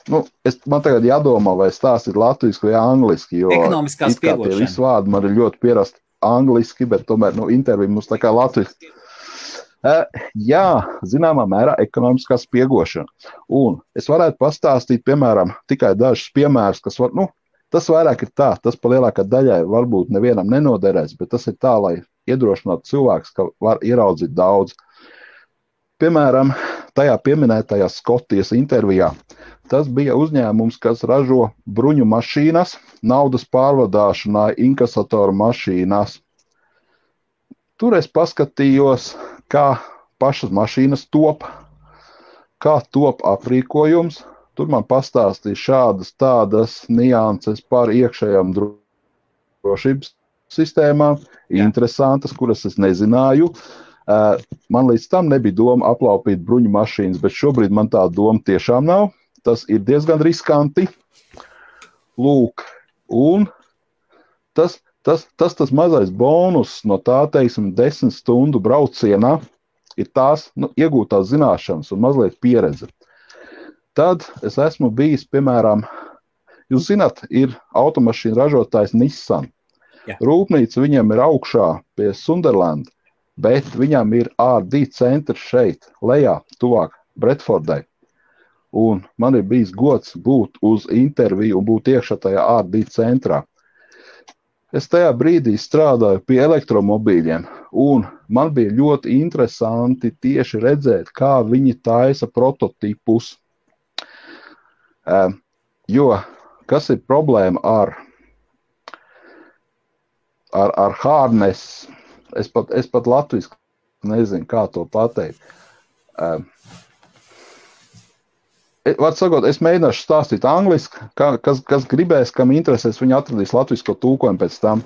Man tagad jādomā, vai stāstīt latviski vai angliski, jo ekonomiskās piegošana. Tie visi vārdi man ir ļoti pierasti angliski, bet tomēr intervija mums tā kā latviski. Jā, zināmā mērā ekonomiskās piegošana. Un es varētu pastāstīt, piemēram, tikai dažus piemērus, kas var, tas vairāk ir tā, tas pa lielākā daļai varbūt nevienam nenoderēs, bet tas ir tā, lai iedrošinātu cilvēks, ka var ieraudzīt daudz. Piemēram, tajā pieminētajā Skotijas intervijā, tas bija uzņēmums, kas ražo bruņu mašīnas, naudas pārvadāšanai, inkasatoru mašīnas. Tur es paskatījos, kā pašas mašīnas top, kā top aprīkojums. Tur man pastāstīja šādas tādas nianses par iekšējām drošības sistēmām, interesantas, kuras es nezināju. Man līdz tam nebija doma aplaupīt bruņu mašīnas, bet šobrīd man tā doma tiešām nav. Tas ir diezgan riskanti. Lūk, un tas mazais bonus no tā, teiksim, 10 stundu braucienā ir tās iegūtās zināšanas un mazliet pieredze. Tad es esmu bijis, piemēram, jūs zināt, ir automašīnu ražotājs Nissan. Jā. Rūpnīca viņam ir augšā pie Sunderland, bet viņam ir R&D centrs šeit, lejā, tuvāk Bredfordai. Un man ir bijis gods būt uz interviju un būt iekšā tajā R&D centrā. Es tajā brīdī strādāju pie elektromobīļiem, un man bija ļoti interesanti tieši redzēt, kā viņi taisa prototipus. Jo, kas ir problēma ar harness? Es pat latviski nezinu, kā to pateikt. Var sakot, es mēģināšu stāstīt angliski, kas gribēs, kam interesēs, viņi atradīs latvisko tulkojumu pēc tam.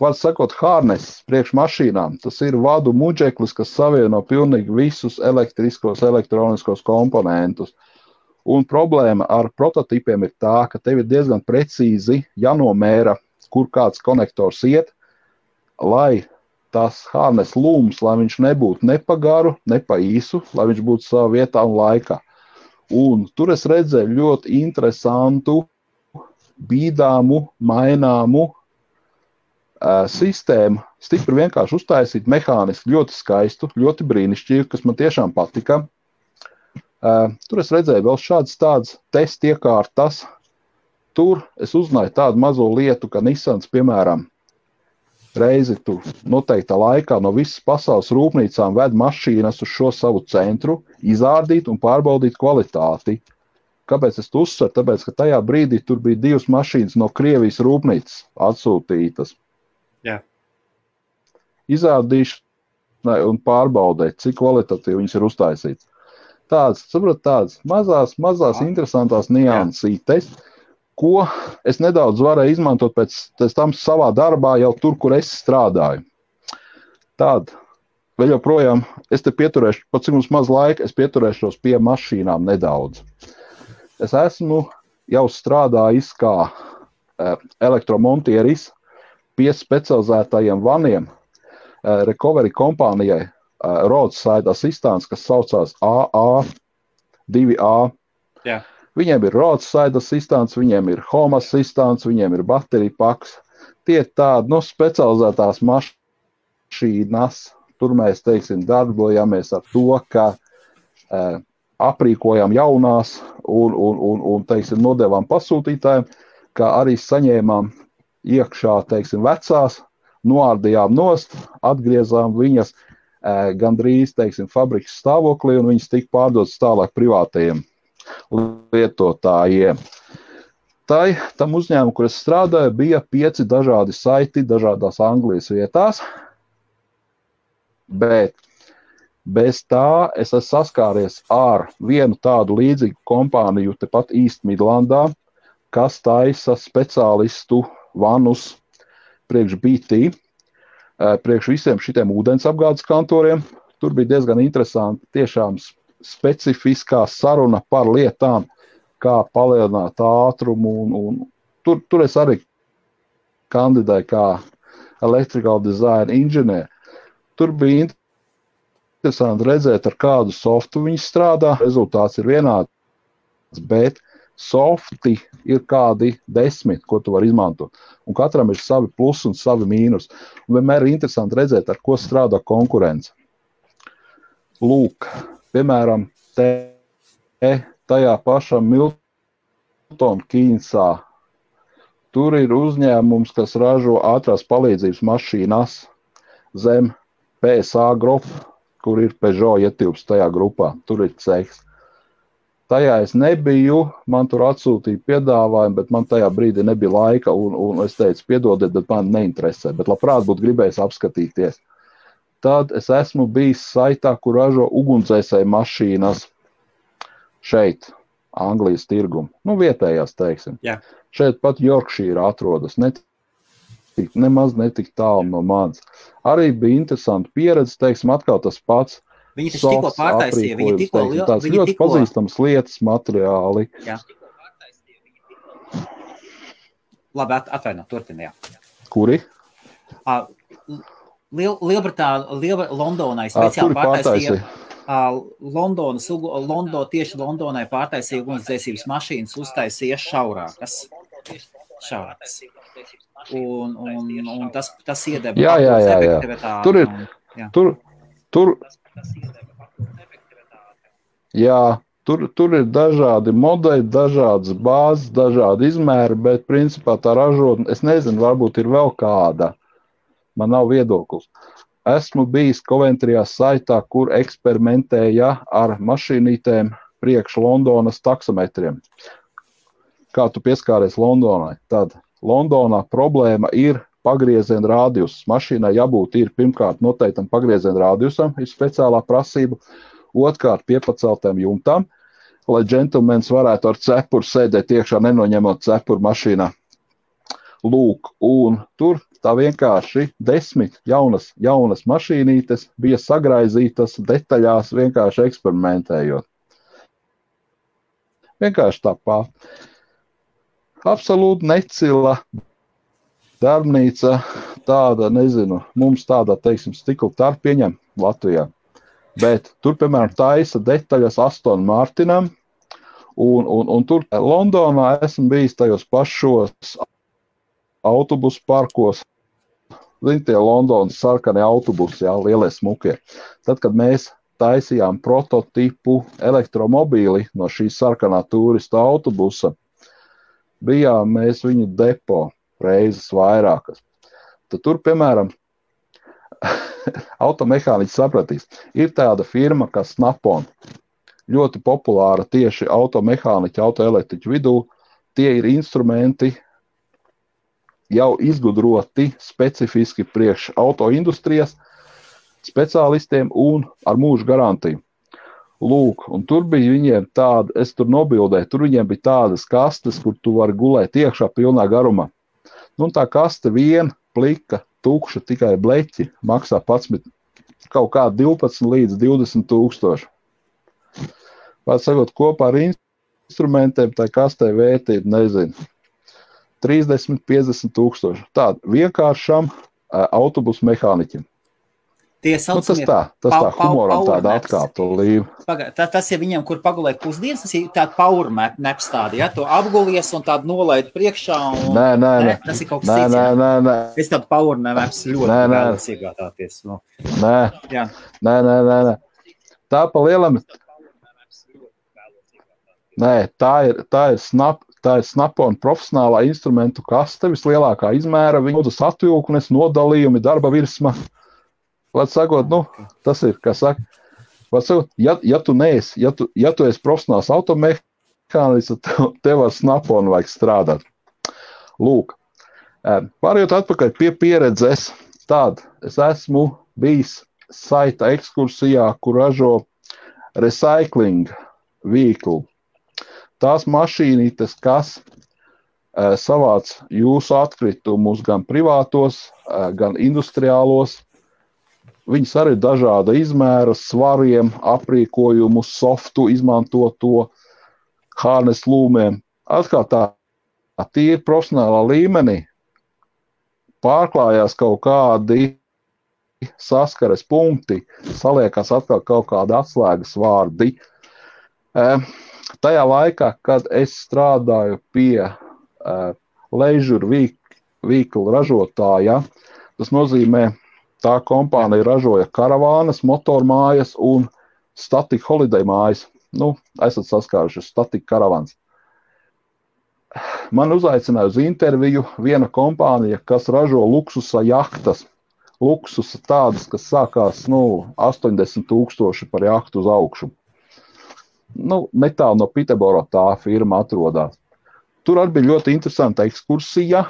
Var sakot, harness priekš mašīnām, tas ir vadu muģeklis, kas savieno pilnīgi visus elektriskos, elektroniskos komponentus. Un problēma ar prototipiem ir tā, ka tev ir diezgan precīzi jānomēra, kur kāds konektors iet, lai tas harness lūms, lai viņš nebūtu ne pa garu, ne pa īsu, lai viņš būtu savā vietā un laikā. Un tur es redzēju ļoti interesantu, bīdāmu, maināmu sistēmu, stipri vienkārši uztaisīt mehāniski, ļoti skaistu, ļoti brīnišķīgu, kas man tiešām patika. Tur es redzēju vēl šādas tādas testa iekārtas. Tur es uzzināju tādu mazo lietu, ka Nissans, piemēram, reizi tu noteiktā laikā no visas pasaules rūpnīcām ved mašīnas uz šo savu centru, izārdīt un pārbaudīt kvalitāti. Kāpēc es to uzsveru? Tāpēc, ka tajā brīdī tur bija 2 mašīnas no Krievijas rūpnīcas atsūtītas. Jā. Izārdīšanai un pārbaudēt, cik kvalitatīvi viņas ir uztaisītas. Tādas mazās interesantās niansītes, ko es nedaudz varēju izmantot pēc tam savā darbā jau tur, kur es strādāju. Tad, vēl joprojām, es te pieturēšu, pat cik mums maz laika, es pieturēšos pie mašīnām nedaudz. Es esmu jau strādājis kā elektromontieris pie specializētajiem vaniem recovery kompānijai Roadside Assistance, kas saucās AA, 2A. Jā. Viņiem ir roadside assistants, viņiem ir home assistants, viņiem ir baterija paks. Tie tādi, specializētās mašīnas. Tur mēs, teiksim, darbojamies ar to, ka aprīkojam jaunās un teiksim, nodevām pasūtītājiem, kā arī saņēmām iekšā, teiksim, vecās, noārdījām nost, atgriezām viņas gandrīz, teiksim, fabrikas stāvoklī, un viņas tika pārdotas tālāk privātajiem lietotājiem. Tam uzņēmumu, kur es strādāju, bija 5 dažādi saiti dažādās Anglijas vietās, bet bez tā es esmu saskāries ar vienu tādu līdzīgu kompāniju tepat East Midlandā, kas taisa speciālistu vanus priekš BT, priekš visiem šitiem ūdens apgādes kantoriem. Tur bija diezgan interesanti, tiešām specifiskā saruna par lietām, kā palielināt ātrumu. Un tur es arī kandidēju kā electrical design inženieru. Tur bija interesanti redzēt, ar kādu softu viņi strādā. Rezultāts ir vienāds, bet softi ir kādi 10, ko tu vari izmantot. Un katram ir savi plus un savi mīnus. Un vienmēr ir interesanti redzēt, ar ko strādā konkurence. Lūk, piemēram, tajā pašā Milton Keynesā. Tur ir uzņēmums, kas ražo ātrās palīdzības mašīnas zem PSA grupa, kur ir Peugeot ietilps tajā grupā. Tur ir cehs. Tajā es nebiju, man tur atsūtīja piedāvājumu, bet man tajā brīdī nebija laika, un es teicu, piedodiet, bet man neinteresē, bet labprāt būtu gribējis apskatīties. Tad es esmu bijis saitā, kur ražo ugunsdzēsēju mašīnas šeit, Anglijas tirgumu. Vietējās, teiksim. Jā. Šeit pat Yorkshire atrodas, nemaz netik tālu no manis. Arī bija interesanti pieredze, teiksim, atkal tas pats. Viņi taču tikko pārtaisīja, tās ļoti pazīstams lietas, materiāli. Jā. Labi, atvaino, turpini, jā. Kuri? Londonai speciāli pārtaisīja. Tieši Londonai pārtaisīja ugunsdzēsības mašīnas, uztaisīja šaurākas. Un tas iedeva efektivitāti. Tur ir dažādi modeļi, dažādas bāzes, dažādi izmēri, bet principā tā ražotne, es nezinu, varbūt ir vēl kāda. Man nav viedoklis. Esmu bijis Coventrijā saitā, kur eksperimentēja ar mašīnītēm priekš Londonas taksometriem. Kā tu pieskāries Londonai? Tad Londonā problēma ir pagrieziena radius. Mašīnai jābūt ir pirmkārt noteiktam pagrieziena radiusam, ir speciālā prasība, otrkārt piepaceltām jumtām, lai džentlmenis varētu ar cepuru sēdēt iekšā, nenoņemot cepuru mašīnā. Lūk, un tur tā vienkārši 10 jaunas mašīnītes bija sagraizītas detaļās, vienkārši eksperimentējot. Vienkārši tāpāt. Absolūti necila darbnīca, tāda, nezinu, mums tāda, teiksim, stikla tarp pieņem Latvijā. Bet tur, piemēram, taisa detaļas Aston Martinam, un tur Londonā esmu bijis tajos pašos autobusu parkos. Zini, tie Londonas sarkanie autobusi, jā, lielie smukie. Tad, kad mēs taisījām prototipu elektromobīli no šīs sarkanā turistu autobusa, bijām mēs viņu depo reizes vairākas. Tad tur, piemēram, automehāniķis sapratīs, ir tāda firma kā Snap-on, ļoti populāra tieši automehāniķu, autoelektriķu vidū. Tie ir instrumenti jau izgudroti specifiski priekš autoindustrijas speciālistiem un ar mūža garantiju. Lūk, un tur bija viņiem tāda, es tur nobildēju, tur viņiem bija tādas kastes, kur tu vari gulēt iekšā pilnā garumā. Tā kaste viena, plika, tukša, tikai bleķi, maksā 11, kaut kā 12 līdz 20 tūkstoši. Pēc sakot, kopā ar instrumentiem tā kastē vērtība, nezinu, 30, 50 tūkstoši. Tāda vienkāršam autobusu mehāniķim. Tie saucamie Tas tā humoram tāda atkāpta līme. Tas ir viņiem, kur pagulēt pusdienas, tas ir tāda power naps tāda, ja? To apgulies un tādu nolaid priekšā. Nē. Tas ir kaut kas cits. Nē. Es tādu power naps ļoti vēlos iegādāties. Nē. Tā pa lielam. Nē, tā ir Snap-on profesionālā instrumentu kaste, vislielākā izmēra, viņas atvilknes, nodalījumi, darba virsma. Vārds sakot, tas ir, kā saka, vārds sakot, ja tu esi profesionāls automehānists, tev ar Snap-on vajag strādāt. Lūk, pārējot atpakaļ pie pieredzes, es esmu bijis saita ekskursijā, kur ražo recycling vehicle. Tās mašīnītes, kas savāc jūsu atkritumus gan privātos, gan industriālos, viņas arī dažāda izmēra, svariem, aprīkojumu, softu, izmantoto hārnes lūmiem. Atkal tā tīri profesionālā līmenī pārklājās kaut kādi saskares punkti, saliekās atkal kaut kādi atslēgas vārdi. Tajā laikā, kad es strādāju pie leisure vehicle ražotāja, tas nozīmē, tā kompānija ražoja karavānas, motormājas un static holiday mājas. Esat saskāruši static karavāns. Man uzaicināja uz interviju viena kompānija, kas ražo luksusa jahtas. Luksusa tādas, kas sākās 80,000 par jahtu uz augšu. Netālu no Piteboro tā firma atrodas. Tur arī bija ļoti interesanta ekskursija,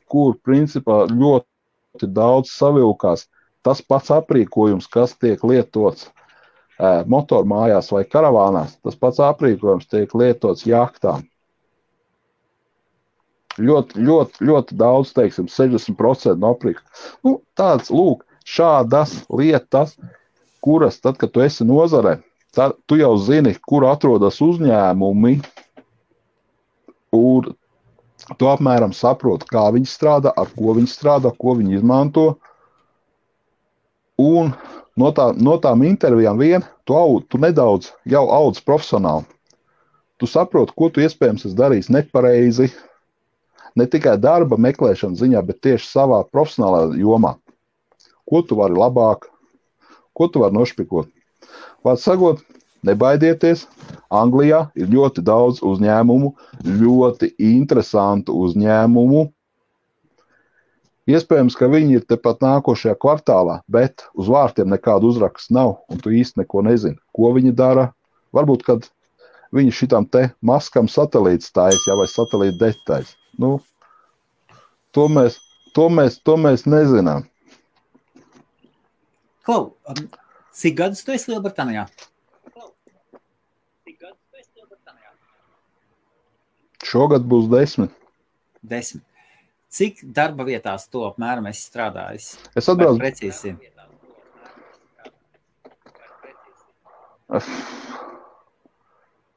kur principā ļoti daudz savilkās tas pats aprīkojums, kas tiek lietots motormājās vai karavānās. Tas pats aprīkojums tiek lietots jahtām. Ļoti daudz, 60% no aprīkojuma. Tāds, šādas lietas, kuras tad, kad tu esi nozarē, tad tu jau zini, kur atrodas uzņēmumi, un tu apmēram saproti, kā viņi strādā, ar ko viņi strādā, ko viņi izmanto. Un no tām intervijām tu nedaudz jau audz profesionāli. Tu saproti, ko tu iespējams esi darījis nepareizi, ne tikai darba meklēšanas ziņā, bet tieši savā profesionālā jomā. Ko tu vari labāk, ko tu vari nošpikot. Vārds sakot, nebaidieties, Anglijā ir ļoti daudz uzņēmumu, ļoti interesantu uzņēmumu. Iespējams, ka viņi ir tepat nākošajā kvartālā, bet uz vārtiem nekādu uzrakstu nav, un tu īsti neko nezini, ko viņi dara. Varbūt, kad viņi šitam te maskam satelīts taisa, vai satelīta detaļas. To mēs nezinām. Klau, cik gadus tu esi Lielbritānijā? Šogad būs 10. 10. Cik darba vietās to apmēram esi strādājis? Es atbraucu. Precīzi.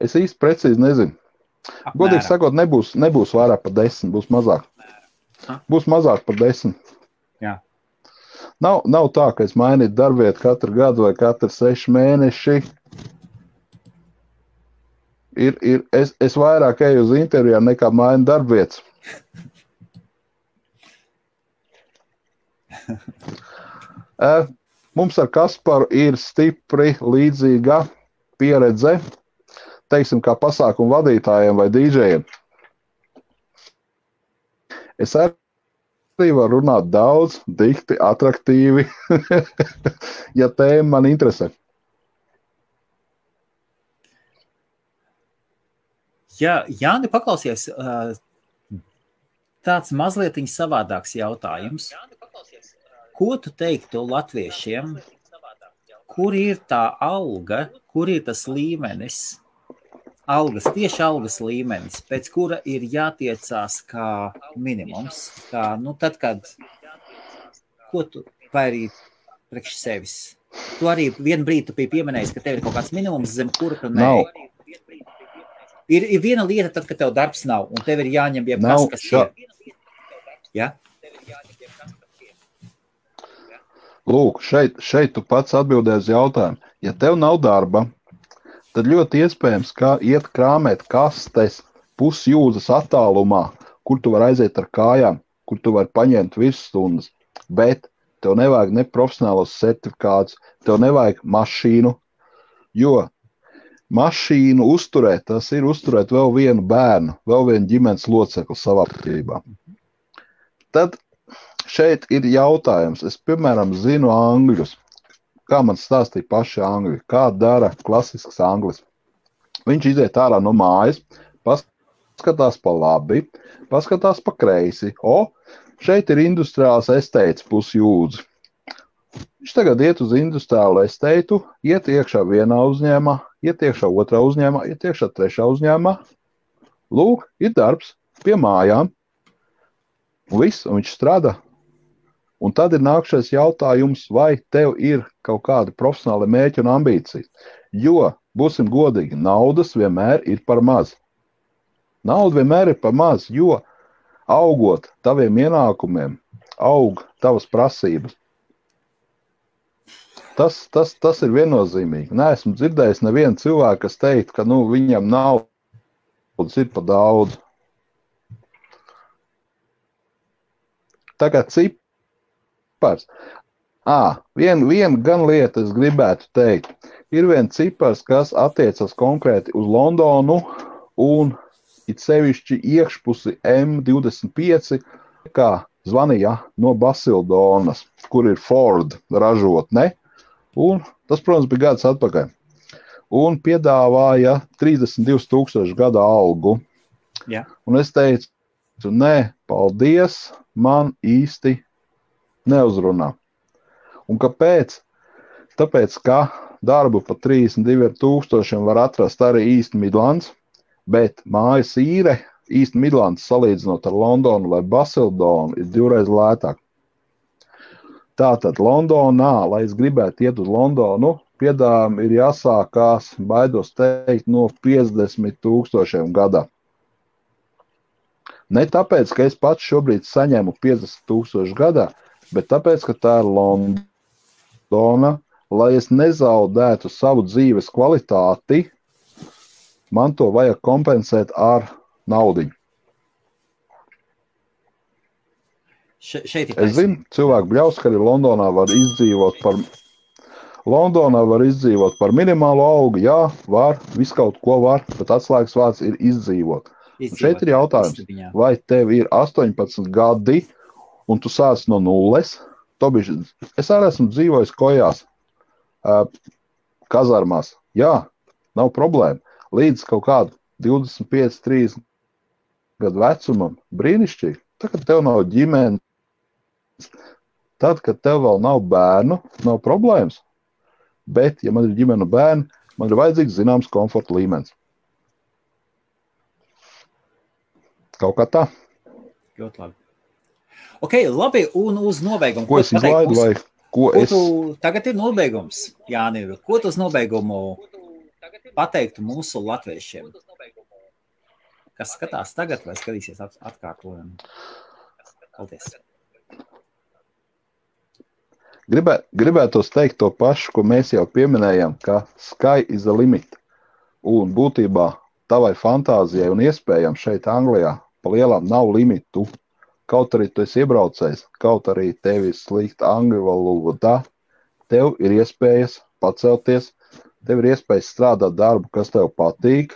Es īsti precīzi nezinu. Apmēram. Godīgi sakot, nebūs vairāk par 10, būs mazāk. Būs mazāk par 10. Jā. Nav tā, ka es mainītu darbvietu katru gadu vai katru 6 mēneši. Es vairāk eju uz intervijām nekā mainu darbvietas. Mums ar Kasparu ir stipri līdzīga pieredze, teiksim, kā pasākumu vadītājiem vai dīdžejiem. Es arī varu runāt daudz, dikti, atraktīvi, ja tēma man interesē. Jā, Jāni, paklausies, tāds mazlietiņ savādāks jautājums. Ko tu teiktu latviešiem? Kur ir tā alga, kur ir tas līmenis, tieši algas līmenis, pēc kura ir jātiecās kā minimums? Tad, kad, ko tu, vai arī priekš sevis? Tu arī vienu brīdi tu biji pieminējis, ka tev ir kaut kāds minimums, zem kura tu nē. Ir viena lieta, tad, kad tev darbs nav, un tev ir jāņem jebkas, kas ir. Ja? Lūk, šeit tu pats atbildēji uz jautājumu. Ja tev nav darba, tad ļoti iespējams, ka iet krāmēt kastes pusjūdzes attālumā, kur tu vari aiziet ar kājām, kur tu vari paņemt virsstundas, bet tev nevajag ne profesionālos certifikātus, tev nevajag mašīnu, jo mašīnu uzturēt, tas ir uzturēt vēl vienu bērnu, vēl vienu ģimenes locekli savā apkārtībā. Tad šeit ir jautājums. Es, piemēram, zinu angļus. Kā man stāstīja paši angļi, kā dara klasisks anglis. Viņš iziet ārā no mājas, paskatās pa labi, paskatās pa kreisi. Šeit ir industriāls esteits pusjūdzi. Viņš tagad iet uz industriālu esteitu, iet iekšā vienā uzņēmumā, iet iekšā otrā uzņēmumā, iet iekšā trešā uzņēmumā. Lūk, ir darbs pie mājām. Un viss, un viņš strādā. Un tad ir nākšais jautājums, vai tev ir kaut kādi profesionāli mērķi un ambīcijas. Jo, būsim godīgi, naudas vienmēr ir par maz. Nauda vienmēr ir par maz, jo augot taviem ienākumiem, aug tavas prasības. Tas ir viennozīmīgi. Neesmu dzirdējis nevienu cilvēku, kas teikt, ka viņam naudas ir pa daudz. Tagad cipars. Viena gan lieta es gribētu teikt. Ir viens cipars, kas attiecas konkrēti uz Londonu un it sevišķi iekšpusi M25, kā zvanīja no Basildonas, kur ir Ford ražotne. Un tas, protams, bija gads atpakaļ. Un piedāvāja 32,000 gada algu. Jā. Un es teicu, nē, paldies, man īsti neuzrunā. Un kāpēc? Tāpēc, ka darbu pa 32,000 var atrast arī East Midlands, bet mājas īre East Midlands salīdzinot ar Londonu vai Basildonu ir 2 reizes lētāk. Tātad Londonā, lai es gribētu iet uz Londonu, piedāvājumi ir jāsākās, baidos teikt, no 50,000 gadā. Ne tāpēc, ka es pats šobrīd saņemu 50,000 gadā, bet tāpēc, ka tā ir Londona, lai es nezaudētu savu dzīves kvalitāti, man to vajag kompensēt ar naudiņu. Es zinu, cilvēku bļaus, ka arī Londonā var izdzīvot par minimālu algu. Jā, var, visu kaut ko var, bet atslēgas vārds ir izdzīvot. Un šeit ir jautājums, vai tev ir 18 gadi un tu sāc no nulles? Es arī esmu dzīvojis kojās, kazarmās. Jā, nav problēma. Līdz kaut kādu 25, 30 gadu vecumam brīnišķīgi. Tagad tev nav ģimenes. Tad, kad tev vēl nav bērnu, nav problēmas. Bet, ja man ir ģimene un bērni, man ir vajadzīgs zināms komforta līmenis. Kaut kā tā. Ļoti labi. Ok, labi, un uz nobeigumu. Ko es izlaidu vai ko es... Tagad ir nobeigums, Jāni. Ko tu uz nobeigumu pateiktu mūsu latviešiem? Kas skatās tagad vai skatīsies atkārtojumu? Paldies. Gribētos teikt to pašu, ko mēs jau pieminējām, ka sky is the limit. Un būtībā tavai fantāzijai un iespējām šeit Anglijā pa lielām nav limitu. Kaut arī tu esi iebraucējs, kaut arī tev ir slikta angļu valoda, tev ir iespējas pacelties, tev ir iespējas strādāt darbu, kas tev patīk,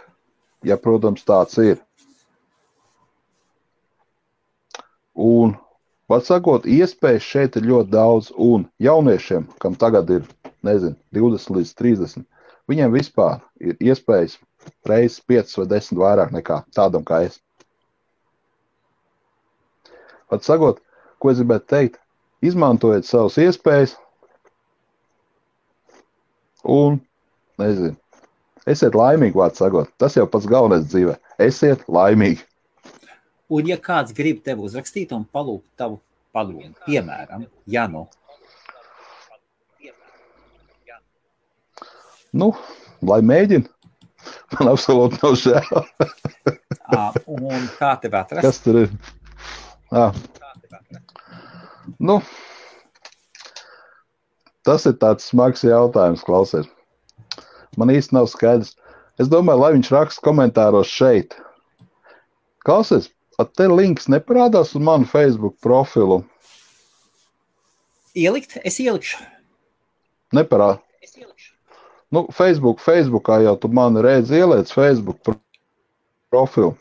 ja, protams, tāds ir. Un var sakot, iespējas šeit ir ļoti daudz, un jauniešiem, kam tagad ir, 20 līdz 30, viņiem vispār ir iespējas reizes 5 vai 10 vairāk nekā tādam kā es. Var sakot, ko es gribētu teikt, izmantojiet savas iespējas, un, esiet laimīgi, vārds sakot, tas jau pats galvenais dzīvē, esiet laimīgi. Un ja kāds grib tevi uzrakstīt un palūgt tavu padomu, piemēram, Janu? Lai mēģina. Man absolūti nav žēl. Un kā tev atrast? Kas tur ir? Tas ir tāds smags jautājums, klausies. Man īsti nav skaidrs. Es domāju, lai viņš raksta komentāros šeit. Klausies, te links neparādās uz manu Facebook profilu. Ielikt? Es ielikšu. Neparād. Nu, Facebookā jau tu mani redzi ieliec Facebook profilu.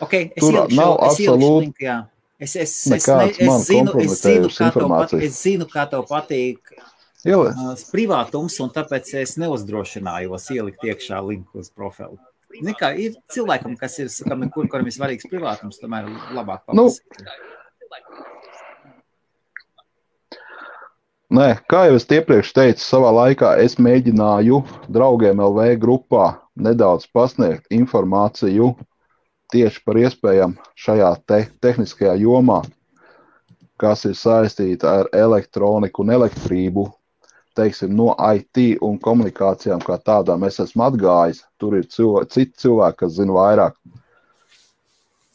Ok, es Tur ielikšu, nav absolūti linku, jā. Es zinu, kā tev patīk privātums, un tāpēc es neuzdrošinājos ielikt iekšā linku uz profilu. Kā, ir cilvēkam, kas ir, kuram ir svarīgs privātums, tomēr labāk papasīt. Nē, kā jau es iepriekš teicu, savā laikā es mēģināju draugiem LV grupā nedaudz pasniegt informāciju tieši par iespējām šajā tehniskajā jomā, kas ir saistīta ar elektroniku un elektrību, teiksim, no IT un komunikācijām kā tādām es esmu atgājis. Tur ir citi cilvēki, kas zina vairāk.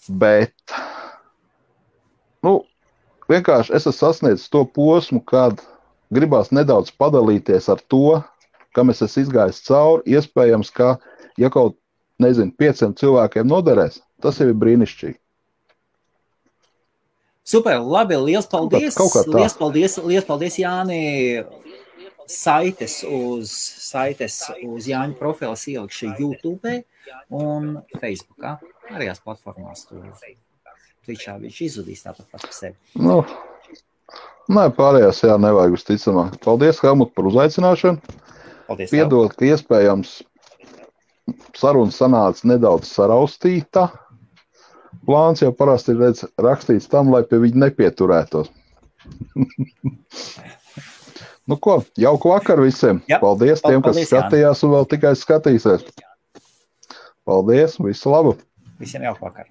Bet, vienkārši es esmu sasniedzis to posmu, kad gribās nedaudz padalīties ar to, kam es esmu izgājis cauri, iespējams, ka, ja kaut 500 cilvēkiem noderēs, tas jau ir brīnišķīgi. Super, labi, liels paldies. Liels paldies, Jāni. Saites uz Jāņa profilas ielikšu YouTube un Facebookā. Arījās platformās tur. Twitchā viņš izzudīs tāpat par sevi. Nē, pārējās nevajag uzticamāk. Paldies, Helmut, par uzaicināšanu. Paldies. Piedod, ka iespējams saruna sanāca nedaudz saraustīta. Plāns jau parasti ir rakstīts tam, lai pie viņa nepieturētos. Jauku vakaru visiem. Jā, paldies tiem, kas skatījās un vēl tikai skatīsies. Paldies, visu labu. Visiem jauku vakaru.